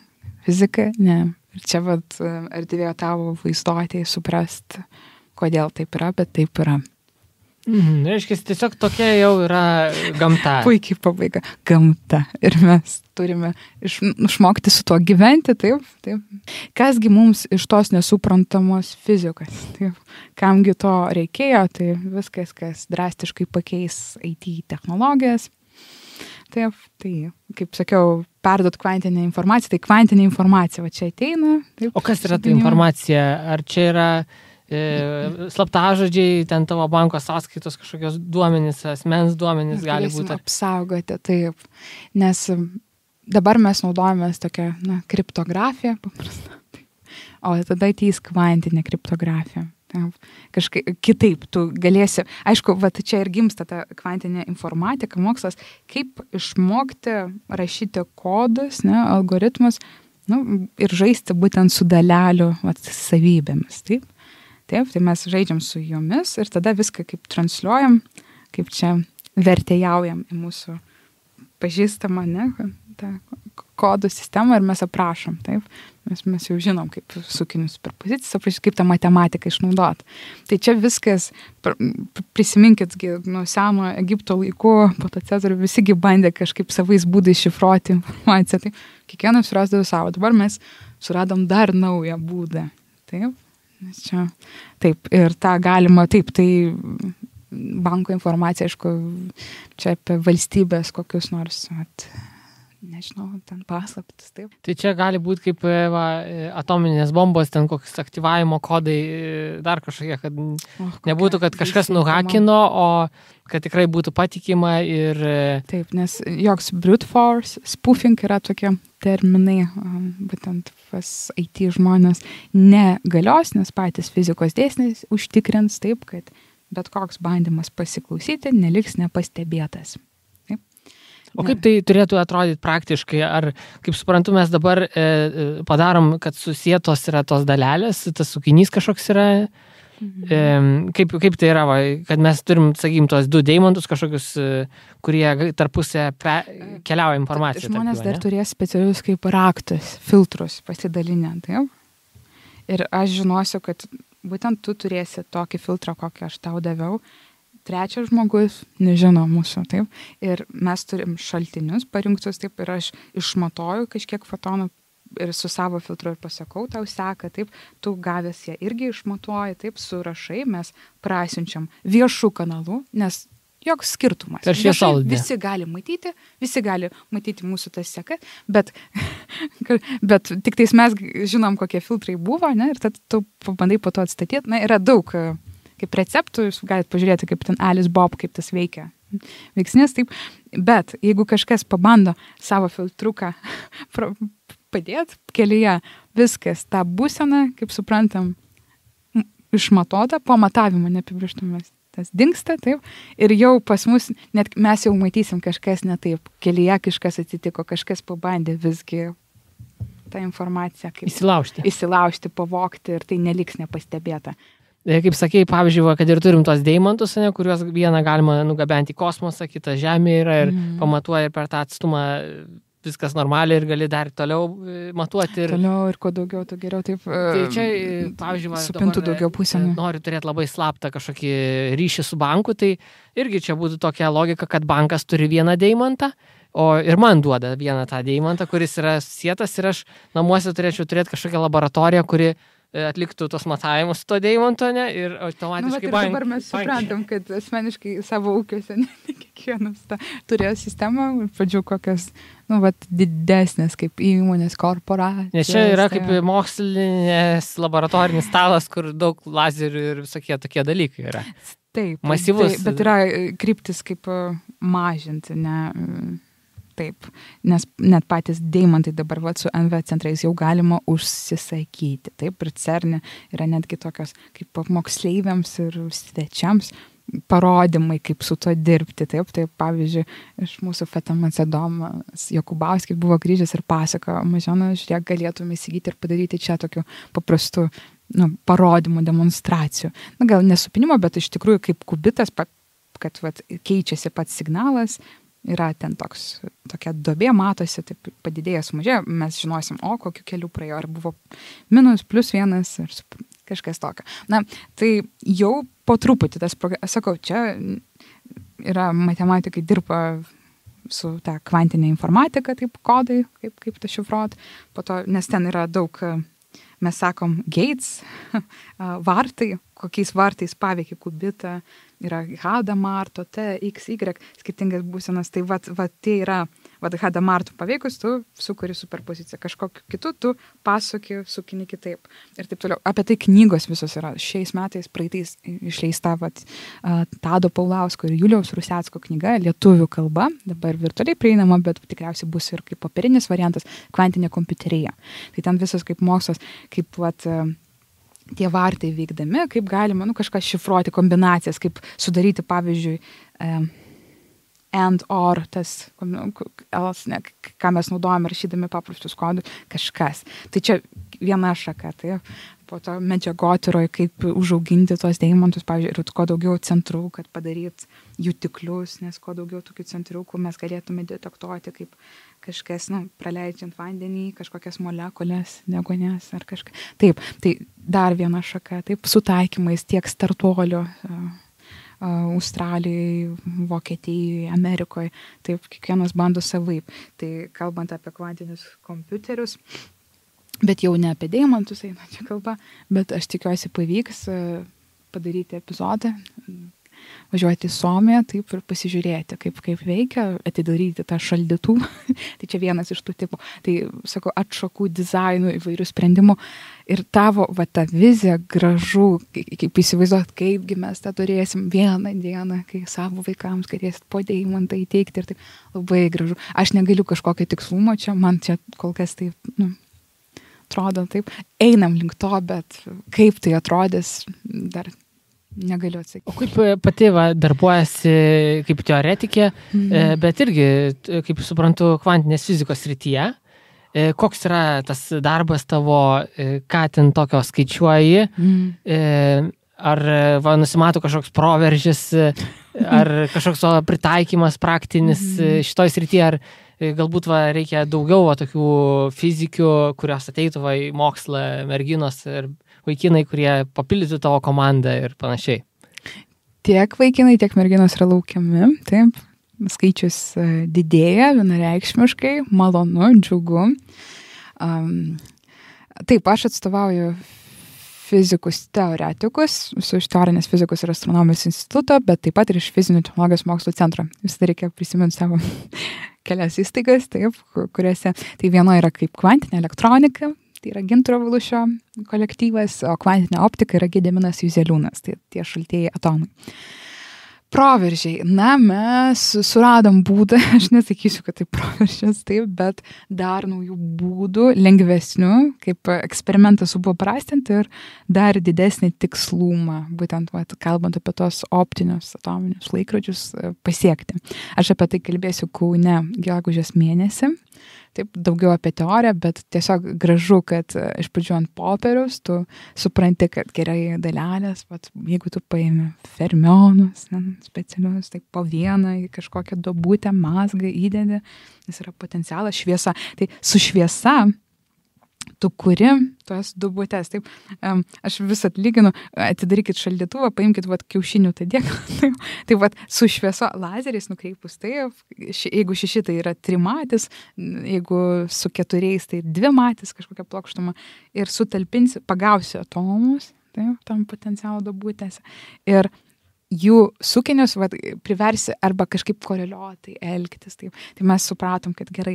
fizika, ne. Ir čia erdvėjo tavo vaizduotėje suprast, kodėl taip yra, bet taip yra. Reiškia, tiesiog tokia jau yra gamta. Puikiai pabaiga. Gamta. Ir mes turime išmokti su tuo gyventi, taip. Kasgi mums iš tos nesuprantamos fizikos, taip. Kamgi to reikėjo, tai viskas, kas drastiškai pakeis IT technologijas. Taip, tai, kaip sakiau, perduot kvantinę informaciją, tai kvantinė informacija va čia ateina. Taip, o kas yra ta informacija? Ar čia yra slaptažodžiai, ten tavo banko sąskaitos kažkokios duomenys, asmens duomenys gali būti? Apsaugoti, taip. Nes dabar mes naudojamės tokią kriptografiją paprastą. O tada ateis kvantinė kriptografija. Kažkaip kitaip tu galėsi, aišku, čia ir gimsta ta kvantinė informatika, mokslas, kaip išmokti rašyti kodus, algoritmus, ir žaisti būtent su dalelių savybėmis, taip. Taip, tai mes žaidžiam su jomis ir tada viską kaip transliuojam, kaip čia vertėjaujam į mūsų pažįstamą, tą kodų sistemą ir mes aprašom, taip. Mes jau žinom, kaip sukinius superpozicijas aprašyti, kaip tą matematiką išnaudoti. Tai čia viskas, prisiminkit, nuo seno Egipto laikų, po to Cezarių, visigi bandė kažkaip savais būdais šifruoti informaciją. Tai kiekvienas surasdavo savo. Dabar mes suradom dar naują būdą, taip. Čia, taip, ir tą galima, taip, tai banko informacija, aišku, čia apie valstybės kokius nors, nežinau, ten paslaptis, taip. Tai čia gali būti kaip atominės bombos, ten kokius aktyvavimo kodai, dar kažkokie, kad nebūtų, kad kažkas nuhakino, o kad tikrai būtų patikima ir... Taip, nes joks brute force, spoofing yra tokie terminai, būtent pas IT žmonės negalios, nes patys fizikos dėsniai užtikrins taip, kad bet koks bandymas pasiklausyti neliks nepastebėtas. Taip. O kaip tai turėtų atrodyti praktiškai? Ar, kaip suprantu, mes dabar padarom, kad susietos yra tos dalelės, tas sukinys kažkoks yra? Kaip tai yra, kad mes turim, sakykim, tos du deimantus kažkokius, kurie tarpusę keliauja informaciją. Žmonės dar turės specialius kaip raktus, filtrus pasidalinę, taip? Ir aš žinosiu, kad būtent tu turėsi tokį filtrą, kokį aš tau daviau. Trečias žmogus nežino mūsų, taip? Ir mes turim šaltinius parinktus, taip, ir aš išmatuoju kažkiek fotonų ir su savo filtru ir pasakau, tau seka, taip, tu gavęs ją irgi išmatuoji, taip, surašai, mes prasiunčiam viešų kanalų, nes joks skirtumas. Visi gali matyti mūsų tas sekas, bet tik tais mes žinom, kokie filtrai buvo, ne, ir tada tu pabandai po to atstatyti. Na, yra daug kaip receptų, jūs galite pažiūrėti, kaip ten Alice Bob, kaip tas veikia. Veiksnės, taip, bet jeigu kažkas pabando savo filtruką padėti kelyje, viskas, tą būseną, kaip suprantam, išmatuota, po matavimo neapibrėžtumas. Tas dingsta, taip, ir jau pas mus, net mes jau matysim kažkas ne taip, kelyje kažkas atsitiko, kažkas pabandė visgi tą informaciją kaip įsilaužti, pavogti ir tai neliks nepastebėta. Kaip sakei, pavyzdžiui, kad ir turim tos deimantus, kuriuos vieną galima nugabenti į kosmosą, kitą žemė yra ir pamatuoja per tą atstumą viskas normaliai ir gali dar toliau matuoti. Toliau ir kuo daugiau, to geriau. Taip, tai čia, pavyzdžiui, supintų daugiau pusėm. Noriu turėti labai slaptą kažkokį ryšį su banku, tai irgi čia būtų tokia logika, kad bankas turi vieną deimantą, ir man duoda vieną tą deimantą, kuris yra sietas ir aš namuose turėčiau turėti kažkokią laboratoriją, kuri atliktų tos matavimus to deimanto, ne, ir automatiškai dabar mes suprantam, kad asmeniškai savo ūkiuose ne kiekvienas turėjo sistemą, pradžių kokias, didesnės kaip įmonės, korporacijos. Nes čia yra kaip mokslinės laboratorinis stalas, kur daug lazerių ir visokie tokie dalykai yra. Taip, masyvus. Bet yra kryptis kaip mažinti, ne... Taip, nes net patys deimantai dabar su NV centrais jau galima užsisakyti. Taip, ir CERN yra netgi tokios kaip moksleiviams ir svečiams parodymai, kaip su to dirbti. Taip, pavyzdžiui, iš mūsų FETMC Domas Jokubauskis buvo grįžęs ir pasakojo, Mažena, žiūrėk, galėtume įsigyti ir padaryti čia tokių paprastų parodymų, demonstracijų. Gal nesupinimo, bet iš tikrųjų kaip kubitas, kad keičiasi pats signalas, yra ten tokia duobė, matosi, taip padidėja, sumažėja, mes žinosim, kokiu keliu praėjo, ar buvo minus, plus vienas, ar kažkas tokio. Tai jau po truputį sakau, čia yra matematikai dirba su ta kvantinė informatika, taip kodai, kaip tą šifruot, po to, nes ten yra daug, mes sakom, gates, vartai, kokiais vartais paveikia kubitą, yra Hadamarto, T, X, Y, skirtingas būsenas, tai tai yra, Hadamarto paveikus, tu sukuri superpoziciją, kažkokiu kitu, tu pasuki, sukini kitaip ir taip toliau. Apie tai knygos visos yra. Šiais metais, praeitais išleista Tado Paulausko ir Juliaus Rusecko knyga, lietuvių kalba, dabar virtualiai prieinama, bet tikriausiai bus ir kaip popierinis variantas, kvantinė kompiuterija. Tai ten visas kaip mokslas, kaip tie vartai veikdami, kaip galima kažką šifruoti, kombinacijas, kaip sudaryti, pavyzdžiui, and or, tas, ką mes naudojame rašydami paprastus kodus, kažkas. Tai čia viena šaka, tai po to medžiagotyroje, kaip užauginti tos deimantus, pavyzdžiui, ir kuo daugiau centrų, kad padaryt jutiklius, nes kuo daugiau tokių centriukų mes galėtume detektuoti, kaip kažkas, praleidžiant vandenį, kažkokias molekulės, deguonies ar kažką. Taip, tai dar viena šaka, taip, sutaikymais tiek startuolio, Australijoje, Vokietijoje, Amerikoje, taip, kiekvienas bando savaip. Tai kalbant apie kvantinius kompiuterius, bet jau ne apie deimantus eina čia kalba, bet aš tikiuosi pavyks padaryti epizodą, važiuoti į Suomiją, taip, ir pasižiūrėti, kaip veikia, atidaryti tą šaldytuvą. Tai čia vienas iš tų tipų. Tai, sakau, atšakų dizainų, įvairių sprendimų. Ir tavo, ta vizija gražu, kaip įsivaizduot, kaipgi mes tą turėsim vieną dieną, kai savo vaikams galėsit po deimantą įteikti ir taip labai gražu. Aš negaliu kažkokio tikslumo čia, man čia kol kas taip, atrodo taip. Einam link to, bet kaip tai atrodys, dar negaliu atsakyti. O kaip pati darbuojasi kaip teoretikė, bet irgi, kaip suprantu, kvantinės fizikos srityje, koks yra tas darbas tavo, ką ten tokio skaičiuoji, ar nusimato kažkoks proveržis, ar kažkoks pritaikymas praktinis šitoj srityje, ar galbūt reikia daugiau tokių fizikių, kurios ateitų į mokslą, merginos ir vaikinai, kurie papildytų tavo komandą ir panašiai. Tiek vaikinai, tiek merginos yra laukiami, taip. Skaičius didėja vienareikšmiškai, malonu, džiugu. Taip, aš atstovauju fizikus teoretikus, iš teorinės fizikos ir astronomijos instituto, bet taip pat ir iš fizinių technologijos mokslo centro. Visada reikia prisiminti savo kelias įstaigas, taip, kuriuose, tai viena yra kaip kvantinė elektronika, tai yra Gintaro Valušio kolektyvas, o kvantinė optika yra Gediminas Juzeliūnas, tai tie šaltieji atomai. Proveržiai. Mes suradom būdą, aš nesakysiu, kad tai proveržis, taip, bet dar naujų būdų, lengvesnių, kaip eksperimentą supaprastinti ir dar didesnį tikslumą, būtent kalbant apie tos optinius atominius laikrodžius pasiekti. Aš apie tai kalbėsiu Kaune gegužės mėnesį. Taip, daugiau apie teoriją, bet tiesiog gražu, kad iš pradžių ant popieriaus tu supranti, kad gerai dalelės, jeigu tu paimi fermionus specialius, tai po vieną į kažkokią duobutę mazgą įdedi, nes yra potencialas šviesa. Tai su šviesa tu kuri tos dubutes. Taip, aš vis atlyginu, atidarykit šaldytuvą, paimkit kiaušinių tą dėklą. Taip, su švieso lazeriais nukreipus, taip, jeigu 6 tai yra 3 matis, jeigu su 4 tai 2 matis kažkokia plokštuma ir sutalpinsi, pagausi atomus, taip, tam potencialo dubutėse. Ir jų sukinius priversi arba kažkaip koreliuotai elgtis. Taip. Tai mes supratom, kad gerai,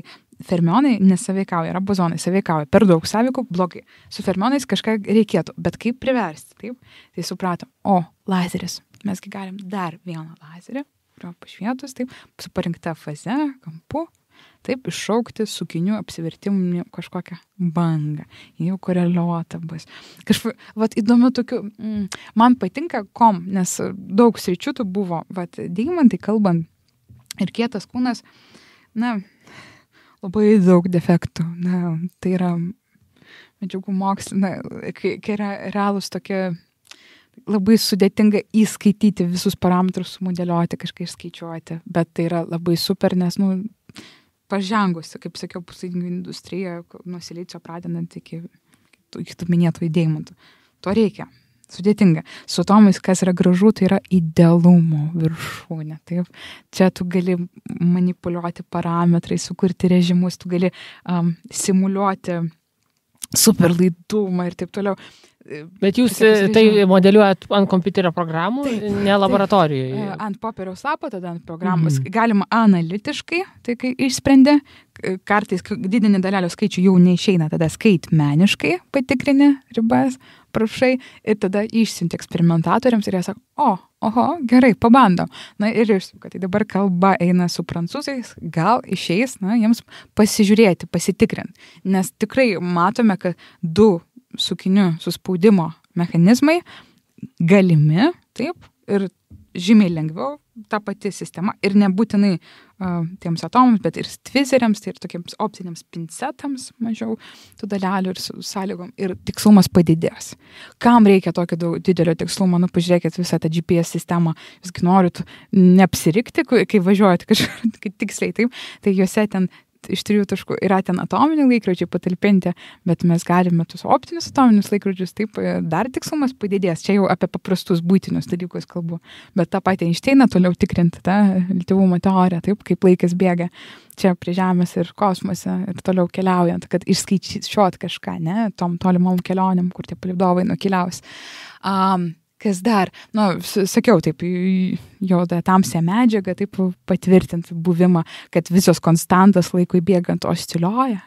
fermionai nesaveikauja, yra bozonai saveikauja, per daug saveikų, blogai. Su fermionais kažką reikėtų, bet kaip priversti, taip? Tai supratom, lazeris, mesgi galim dar vieną lazerį, kurio pašvietus, taip, su parinkta faze, kampu, taip, iššaukti sukinių apsivertimų kažkokią bangą. Jau koreliuota bus. Kažkaip, įdomu tokių, man patinka nes daug sričių tų buvo, deimantai kalbant ir kietas kūnas, labai daug defektų. Tai yra medžiagų mokslinė, kai yra realūs tokie, labai sudėtinga įskaityti visus parametrus, sumodeliuoti, kažką išskaičiuoti, bet tai yra labai super, nes, pažengusi, kaip sakiau, puslaidininkių industrija, nuo silicio pradedant iki tų minėtų deimantų. To reikia. Sudėtinga. Su atomais, kas yra gražu, tai yra idealumo viršūnė. Taip. Čia tu gali manipuliuoti parametrais, sukurti režimus, tu gali simuliuoti superlaidumą ir taip toliau. Bet jūs tai modeliuojat ant kompiuterio programų, ne laboratorijoje? Ant popieriaus lapo, tada ant programos. Galima analitiškai, tai kai išsprendė, kartais didinį dalelių skaičių jau neišeina, tada skaitmeniškai patikrini ribas, prašai, ir tada išsiunti eksperimentatoriams ir jie sako, gerai, pabandom. Ir išsuka, tai dabar kalba eina su prancūzais, gal išeis, jiems pasižiūrėti, pasitikrinti. Nes tikrai matome, kad 2 sukinių suspaudimo mechanizmai galimi, taip, ir žymiai lengviau ta pati sistema ir nebūtinai tiems atomams, bet ir tvizeriams, tai ir tokiems optiniams pincetams mažiau tų dalelių ir sąlygom ir tikslumas padidės. Kam reikia tokio didelio tikslumo? Pažiūrėkit visą tą GPS sistemą, jūsgi norit neapsirikti, kai važiuojate kažkur tiksliai, taip, tai juose ten iš 3 taškų yra ten atominiai laikrodžiai patalpinti, bet mes galime tuos optinius atominius laikrodžius, taip, dar tikslumas padidės. Čia jau apie paprastus būtinius dalykus kalbu. Bet tą patį Einšteiną toliau tikrinti, tą reliatyvumo teoriją, taip, kaip laikas bėga čia prie Žemės ir kosmose ir toliau keliaujant, kad išskaičiuot kažką, ne, tom tolimom kelionėm, kur tie palydovai nukeliaus. Kas dar? Sakiau, taip, juoda tamsia medžiaga, taip, patvirtinti buvimą, kad visos konstantos laikui bėgant osciliuoja,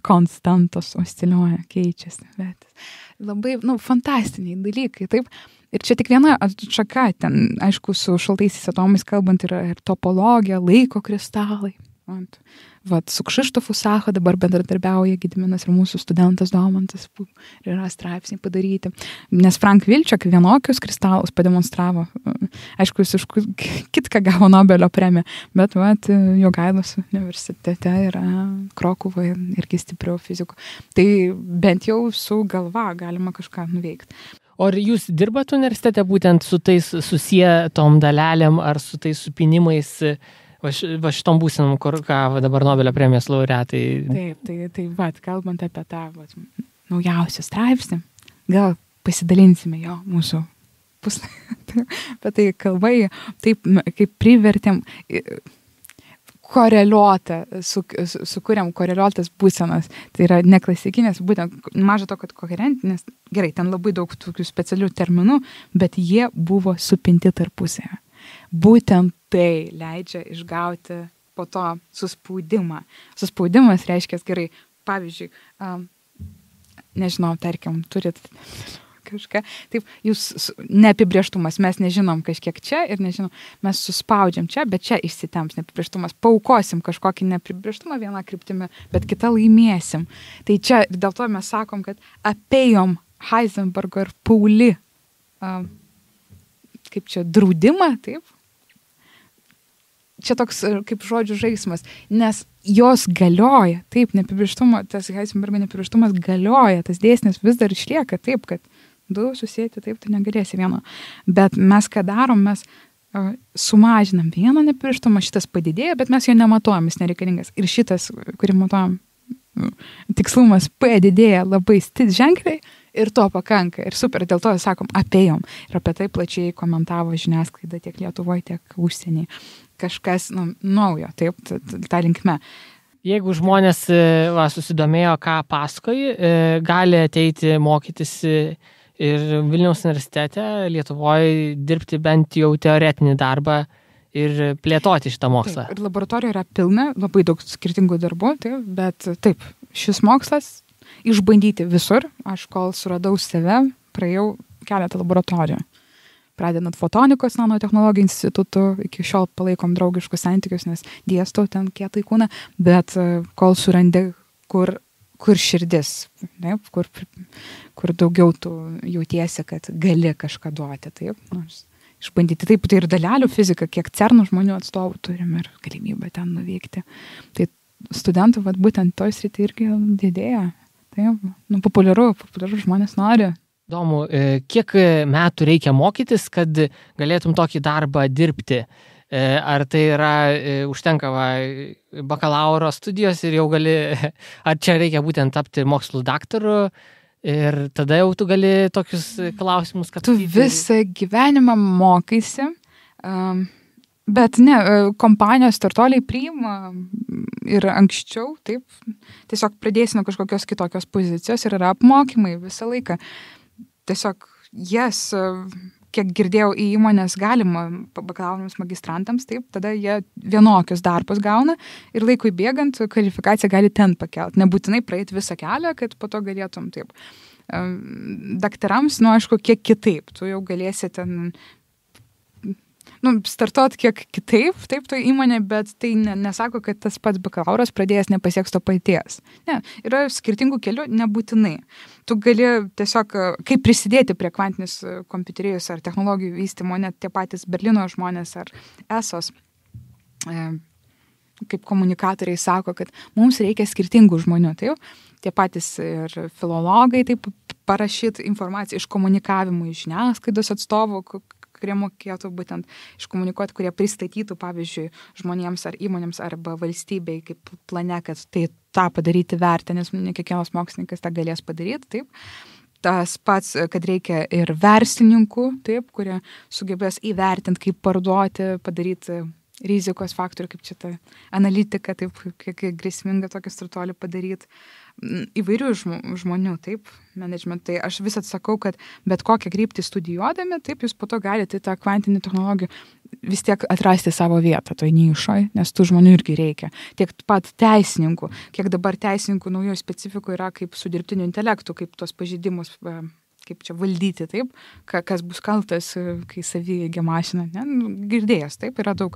konstantos osciliuoja, keičiasi. Bet labai, fantastiniai dalykai, taip. Ir čia tik viena atšaka, ten, aišku, su šaltaisiais atomais kalbant yra ir topologija, laiko kristalai. Su Kšištofu Sacha dabar bendradarbiauja Gediminas ir mūsų studentas Domantas ir yra straipsniai padaryti. Nes Frank Wilczek vienokius kristalus pademonstravo. Aišku, jis už kitką gavo Nobelio premiją, bet Jogailos universitete yra Krokuvoje irgi stipriau fizikų. Tai bent jau su galva galima kažką nuveikti. O ar jūs dirbat universitete būtent su tais susietom dalelėm ar su tais supinimais? Va šitom būsinam, kur dabar Nobelio premijos laureatai. Taip, kalbant apie tą naujausią straipsnį, gal pasidalinsime jo mūsų puslapį. Bet tai kalbai, taip, kaip privertėm koreliuotą, sukūrėm koreliuotas būsenas. Tai yra neklasikinės, būtent maža to, kad koherentinės, gerai, ten labai daug tokių specialių terminų, bet jie buvo supinti tarpusėje. Būtent tai leidžia išgauti po to suspaudimą. Suspaudimas reiškia gerai, pavyzdžiui, nežinau, tarkim, turit kažką, taip, jūs neapibrėžtumas, mes nežinom kažkiek čia ir nežinom, mes suspaudžiam čia, bet čia išsitemps neapibrėžtumas, paukosim kažkokį neapibrėžtumą vieną kryptimį, bet kitą laimėsim. Tai čia dėl to mes sakom, kad apėjom Heisenbergo ir Pauli kaip čia draudimą, taip? Čia toks kaip žodžių žaismas, nes jos galioja, taip, neapibrėžtumo, tas Heisenbergo neapibrėžtumas galioja, tas dėsnis vis dar išlieka, taip, kad 2 susėti, taip, tu negalėsi vieno. Bet mes ką darom, mes sumažinam vieną neapibrėžtumą, šitas padidėja, bet mes jo nematuojam, jis nereikalingas. Ir šitas, kurį matuojam, tikslumas P didėja labai ženkliai ir to pakanka. Ir super, dėl to sakom, apėjom. Ir apie tai plačiai komentavo žiniasklaida tiek Lietuvoje, tiek užsienį. Kažkas naujo, taip, tą linkme. Jeigu žmonės susidomėjo, ką pasakoji, gali ateiti mokytis ir Vilniaus universitete Lietuvoje dirbti bent jau teoretinį darbą ir plėtoti šitą mokslą. Taip, ir laboratorija yra pilna, labai daug skirtingų darbų, taip, bet taip, šis mokslas išbandyti visur. Aš kol suradau save, praėjau keletą laboratorijų. Pradedant fotonikos nanotechnologijų institutu, iki šiol palaikom draugiškus santykius, nes dėstau ten kietai kūną, bet kol surandi, kur širdis, taip, kur daugiau tu jautiesi, kad gali kažką duoti, taip, nors išbandyti. Taip, tai ir dalelių fizika, kiek CERN žmonių atstovų turim ir galimybę ten nuvykti. Tai studentų, būtent toj srity irgi didėja. Taip, populiaru žmonės nori. Įdomu, kiek metų reikia mokytis, kad galėtum tokį darbą dirbti? Ar tai yra, užtenka bakalauro studijos ir jau gali, ar čia reikia būtent tapti mokslų daktaru ir tada jau tu gali tokius klausimus, kad... Tu visą gyvenimą mokaisi, bet ne, kompanijos startuoliai priima ir anksčiau, taip, tiesiog pradėsi nuo kažkokios kitokios pozicijos ir yra apmokymai visą laiką. Tiesiog kiek girdėjau, į įmonės galima bakalaurams magistrantams, taip, tada jie vienokius darbus gauna ir laikui bėgant kvalifikaciją gali ten pakelt. Nebūtinai praeiti visą kelią, kad po to galėtum taip. Daktarams, aišku, kiek kitaip. Tu jau galėsi ten startuot kiek kitaip, taip, to įmonė, bet tai nesako, kad tas pats bakalauras pradėjęs nepasieks to paties. Ne, yra skirtingų kelių, nebūtinai. Tu gali tiesiog, kaip prisidėti prie kvantinės kompiuterijos ar technologijų vystymo, net tie patys Berlyno žmonės ar ESOS, kaip komunikatoriai sako, kad mums reikia skirtingų žmonių, taip, tie patys ir filologai, taip, parašyti informaciją iš komunikavimų, iš žiniasklaidos atstovų, kurie mokėtų būtent iškomunikuoti, kurie pristatytų, pavyzdžiui, žmonėms ar įmonėms arba valstybei kaip plane, kad tai tą padaryti vertę, nes ne kiekvienas mokslininkas tą galės padaryti, taip. Tas pats, kad reikia ir verslininkų, taip, kurie sugebės įvertinti, kaip parduoti, padaryti rizikos faktorių, kaip čia ta analitika, taip, kiek grėsminga tokį startuolį padaryti. Įvairių žmonių, taip, management. Tai aš vis atsakau, kad bet kokią kryptį studijuodami, taip, jūs po to galite tą kvantinį technologiją vis tiek atrasti savo vietą toj nišoj, nes tų žmonių irgi reikia. Tiek pat teisininkų, kiek dabar teisininkų naujoje specifikų yra kaip su dirbtiniu intelektu, kaip tos pažeidimus kaip čia valdyti, taip, kas bus kaltas, kai savieigia mašina, ne, girdėjęs, taip, yra daug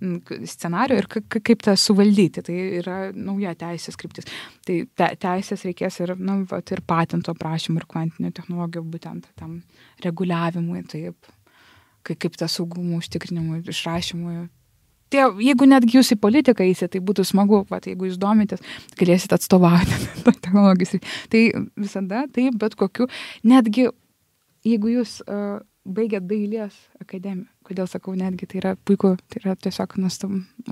scenarių ir kaip tą suvaldyti, tai yra nauja teisės kryptis. Tai teisės reikės ir, ir patento prašymų ir kvantinių technologijų būtent tam reguliavimui, taip, kaip tą saugumų užtikrinimui, išrašymui. Jeigu netgi jūs į politiką įsite, tai būtų smagu, jeigu jūs domitės, galėsit atstovauti technologijos. Tai visada, taip, bet kokiu, netgi jeigu jūs baigėt dailės akademiją, kodėl sakau netgi, tai yra puiku, tai yra tiesiog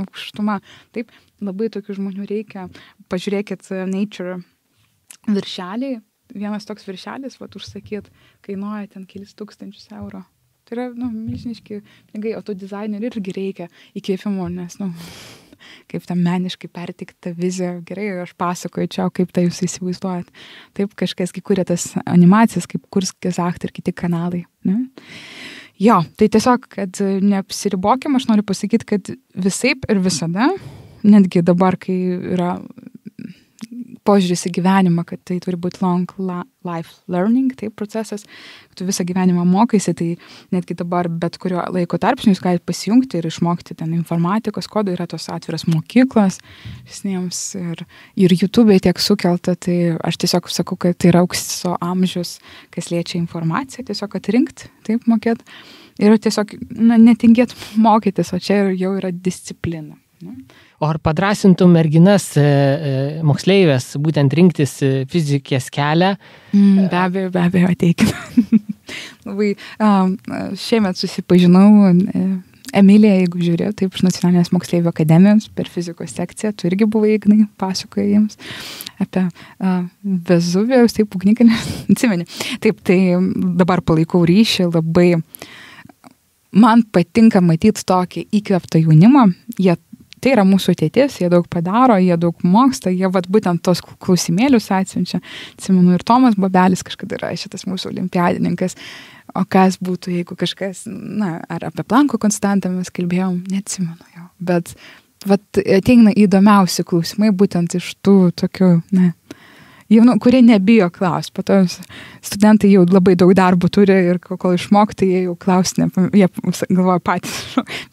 aukštuma. Taip, labai tokių žmonių reikia. Pažiūrėkit Nature viršeliai, vienas toks viršelis, užsakyt, kainuoja ten kelis tūkstančius eurų. Tai yra, milžiniški pinigai, o tų dizainerių irgi reikia įkvėpimo, nes, kaip tam meniškai pertikta vizija, gerai, aš pasakoju čia, kaip tai jūs įsivaizduojat. Taip, kažkas kuria tas animacijas, kaip Kurskis Acht ir kiti kanalai. Ne? Jo, tai tiesiog, kad neapsiribokim, aš noriu pasakyti, kad visaip ir visada, netgi dabar, kai yra požiūris į gyvenimą, kad tai turi būti long life learning, tai procesas, tu visą gyvenimą mokaisi, tai netgi dabar bet kurio laiko tarpsnių jūs galite pasijungti ir išmokti ten informatikos kodų, yra tos atviras mokyklos visiems ir YouTube'e tiek sukelta, tai aš tiesiog sakau, kad tai yra aukso amžius, kas liečia informaciją, tiesiog atrinkti, taip mokėt ir tiesiog netingėt mokytis, o čia jau yra disciplina. O ar padrasintum merginas moksleivės būtent rinktis fizikės kelią? Be abejo, ateikime. Labai šiemet susipažinau Emilija, jeigu žiūrėjau, taip, iš Nacionalinės moksleivių akademijos per fizikos sekciją, tu irgi buvai, Ignai, pasakoja jiems apie Vezuvijaus, taip, ugnikalnį, atsimeni. Taip, tai dabar palaikau ryšį, labai man patinka matyti tokį įkvėptą jaunimą, tai yra mūsų ateitis, jie daug padaro, jie daug moksta, jie būtent tos klausimėlius atsiunčia. Atsimenu, ir Tomas Bobelis kažkada yra šitas mūsų olimpiadininkas. O kas būtų, jeigu kažkas, ar apie Planko konstantą mes kalbėjom, neatsimenu jau. Bet ateina įdomiausi klausimai būtent iš tų tokių, jaunų, kurie nebijo klausti. Po to studentai jau labai daug darbų turi ir kol išmokti, jie jau klausinė, jie galvoja patys.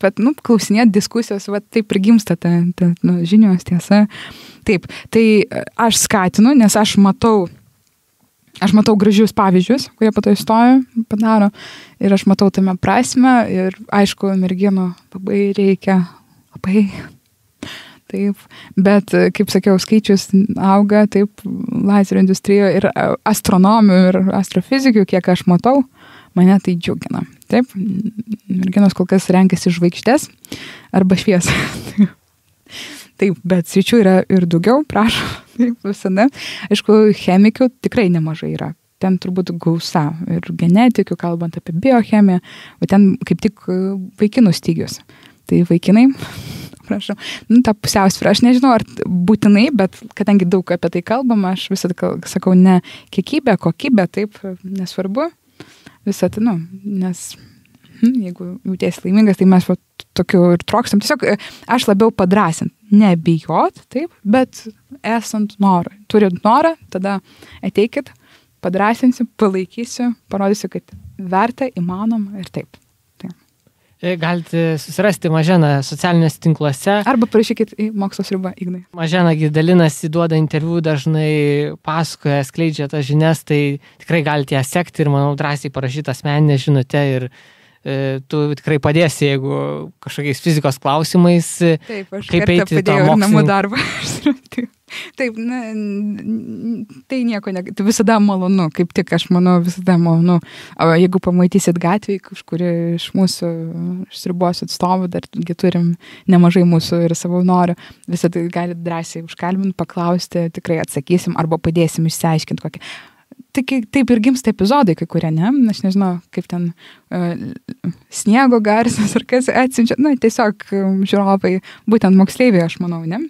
Bet, klausinėt diskusijos, taip ir gimsta ta žinios tiesa. Taip, tai aš skatinu, nes aš matau gražius pavyzdžius, kurie po to įstojo, padaro, ir aš matau tame prasme, ir aišku, merginų labai reikia, taip, bet, kaip sakiau, skaičius auga, taip, lazerio industrijoje ir astronomių, ir astrofizikių, kiek aš matau, mane tai džiugina, taip, merginos kol kas renkasi žvaigždės arba šviesą. Taip, bet sričių yra ir daugiau, prašau, taip, visada. Aišku, chemikių tikrai nemažai yra. Ten turbūt gausa ir genetikių, kalbant apie biochemiją, o ten kaip tik vaikinų stygius. Tai vaikinai, prašau, ta pusiausvyrą, aš nežinau, ar būtinai, bet kadangi daug apie tai kalbama, aš visada sakau, ne kiekybė, kokybė, taip, nesvarbu. Visada, nes jeigu jautiesi laimingas, tai mes tokiu ir trokstam. Tiesiog aš labiau padrąsint, nebijot, taip, bet esant norą. Turint norą, tada ateikit, padrąsinsiu, palaikysiu, parodysiu, kad verta, įmanoma ir taip. Galite susirasti Maženą socialiniuose tinkluose. Arba parašykit į Mokslo sriubą, Ignai. Mažena dalinasi, duoda interviu, dažnai pasakoja, skleidžia tas žinias, tai tikrai galite ją sekti ir, manau, drąsiai parašyti asmeninę žinutę ir tu tikrai padėsi, jeigu kažkokiais fizikos klausimais. Taip, aš kaip eiti tą namų darbą. Taip, tai nieko, tai visada malonu, kaip tik aš manau, visada malonu. O jeigu pamatysit gatvėje, kažkuri iš mūsų sriubos atstovų, dargi turim nemažai mūsų ir savanorių, visada galite drąsiai užkalbinti, paklausti, tikrai atsakysim arba padėsim išsiaiškinti kokią. Taip ir gimsta epizodai, kai kurie, ne? Aš nežinau, kaip ten sniego garsas ar kas atsiunčia. Tiesiog žiūrovai, būtent moksleiviai, aš manau, ne?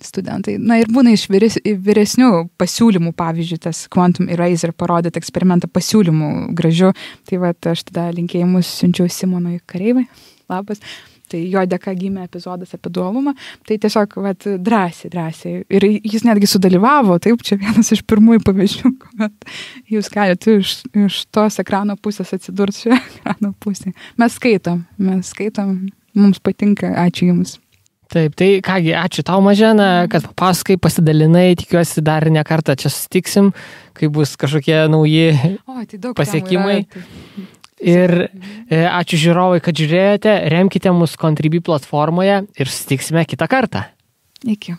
Studentai. Ir būna iš vyresnių pasiūlymų, pavyzdžiui, tas Quantum Eraser parodėt eksperimentą pasiūlymų gražių. Tai aš tada linkėjimus siunčiau Simonui Kareivai. Labas. Tai jo dėka gimė epizodas apie dualumą, tai tiesiog drąsiai. Ir jis netgi sudalyvavo, taip, čia vienas iš pirmųjų pavyzdžių, kuomet jūs galite iš tos ekrano pusės atsidurti šioje ekrano pusėje. Mes skaitom, mums patinka, ačiū Jums. Taip, tai kągi, ačiū tau, Mažena, kad papasakai, pasidalinai, tikiuosi dar ne kartą čia susitiksim, kai bus kažkokie nauji pasiekimai. Ir ačiū žiūrovai, kad žiūrėjote, remkite mus Contribui platformoje ir susitiksime kitą kartą. Iki.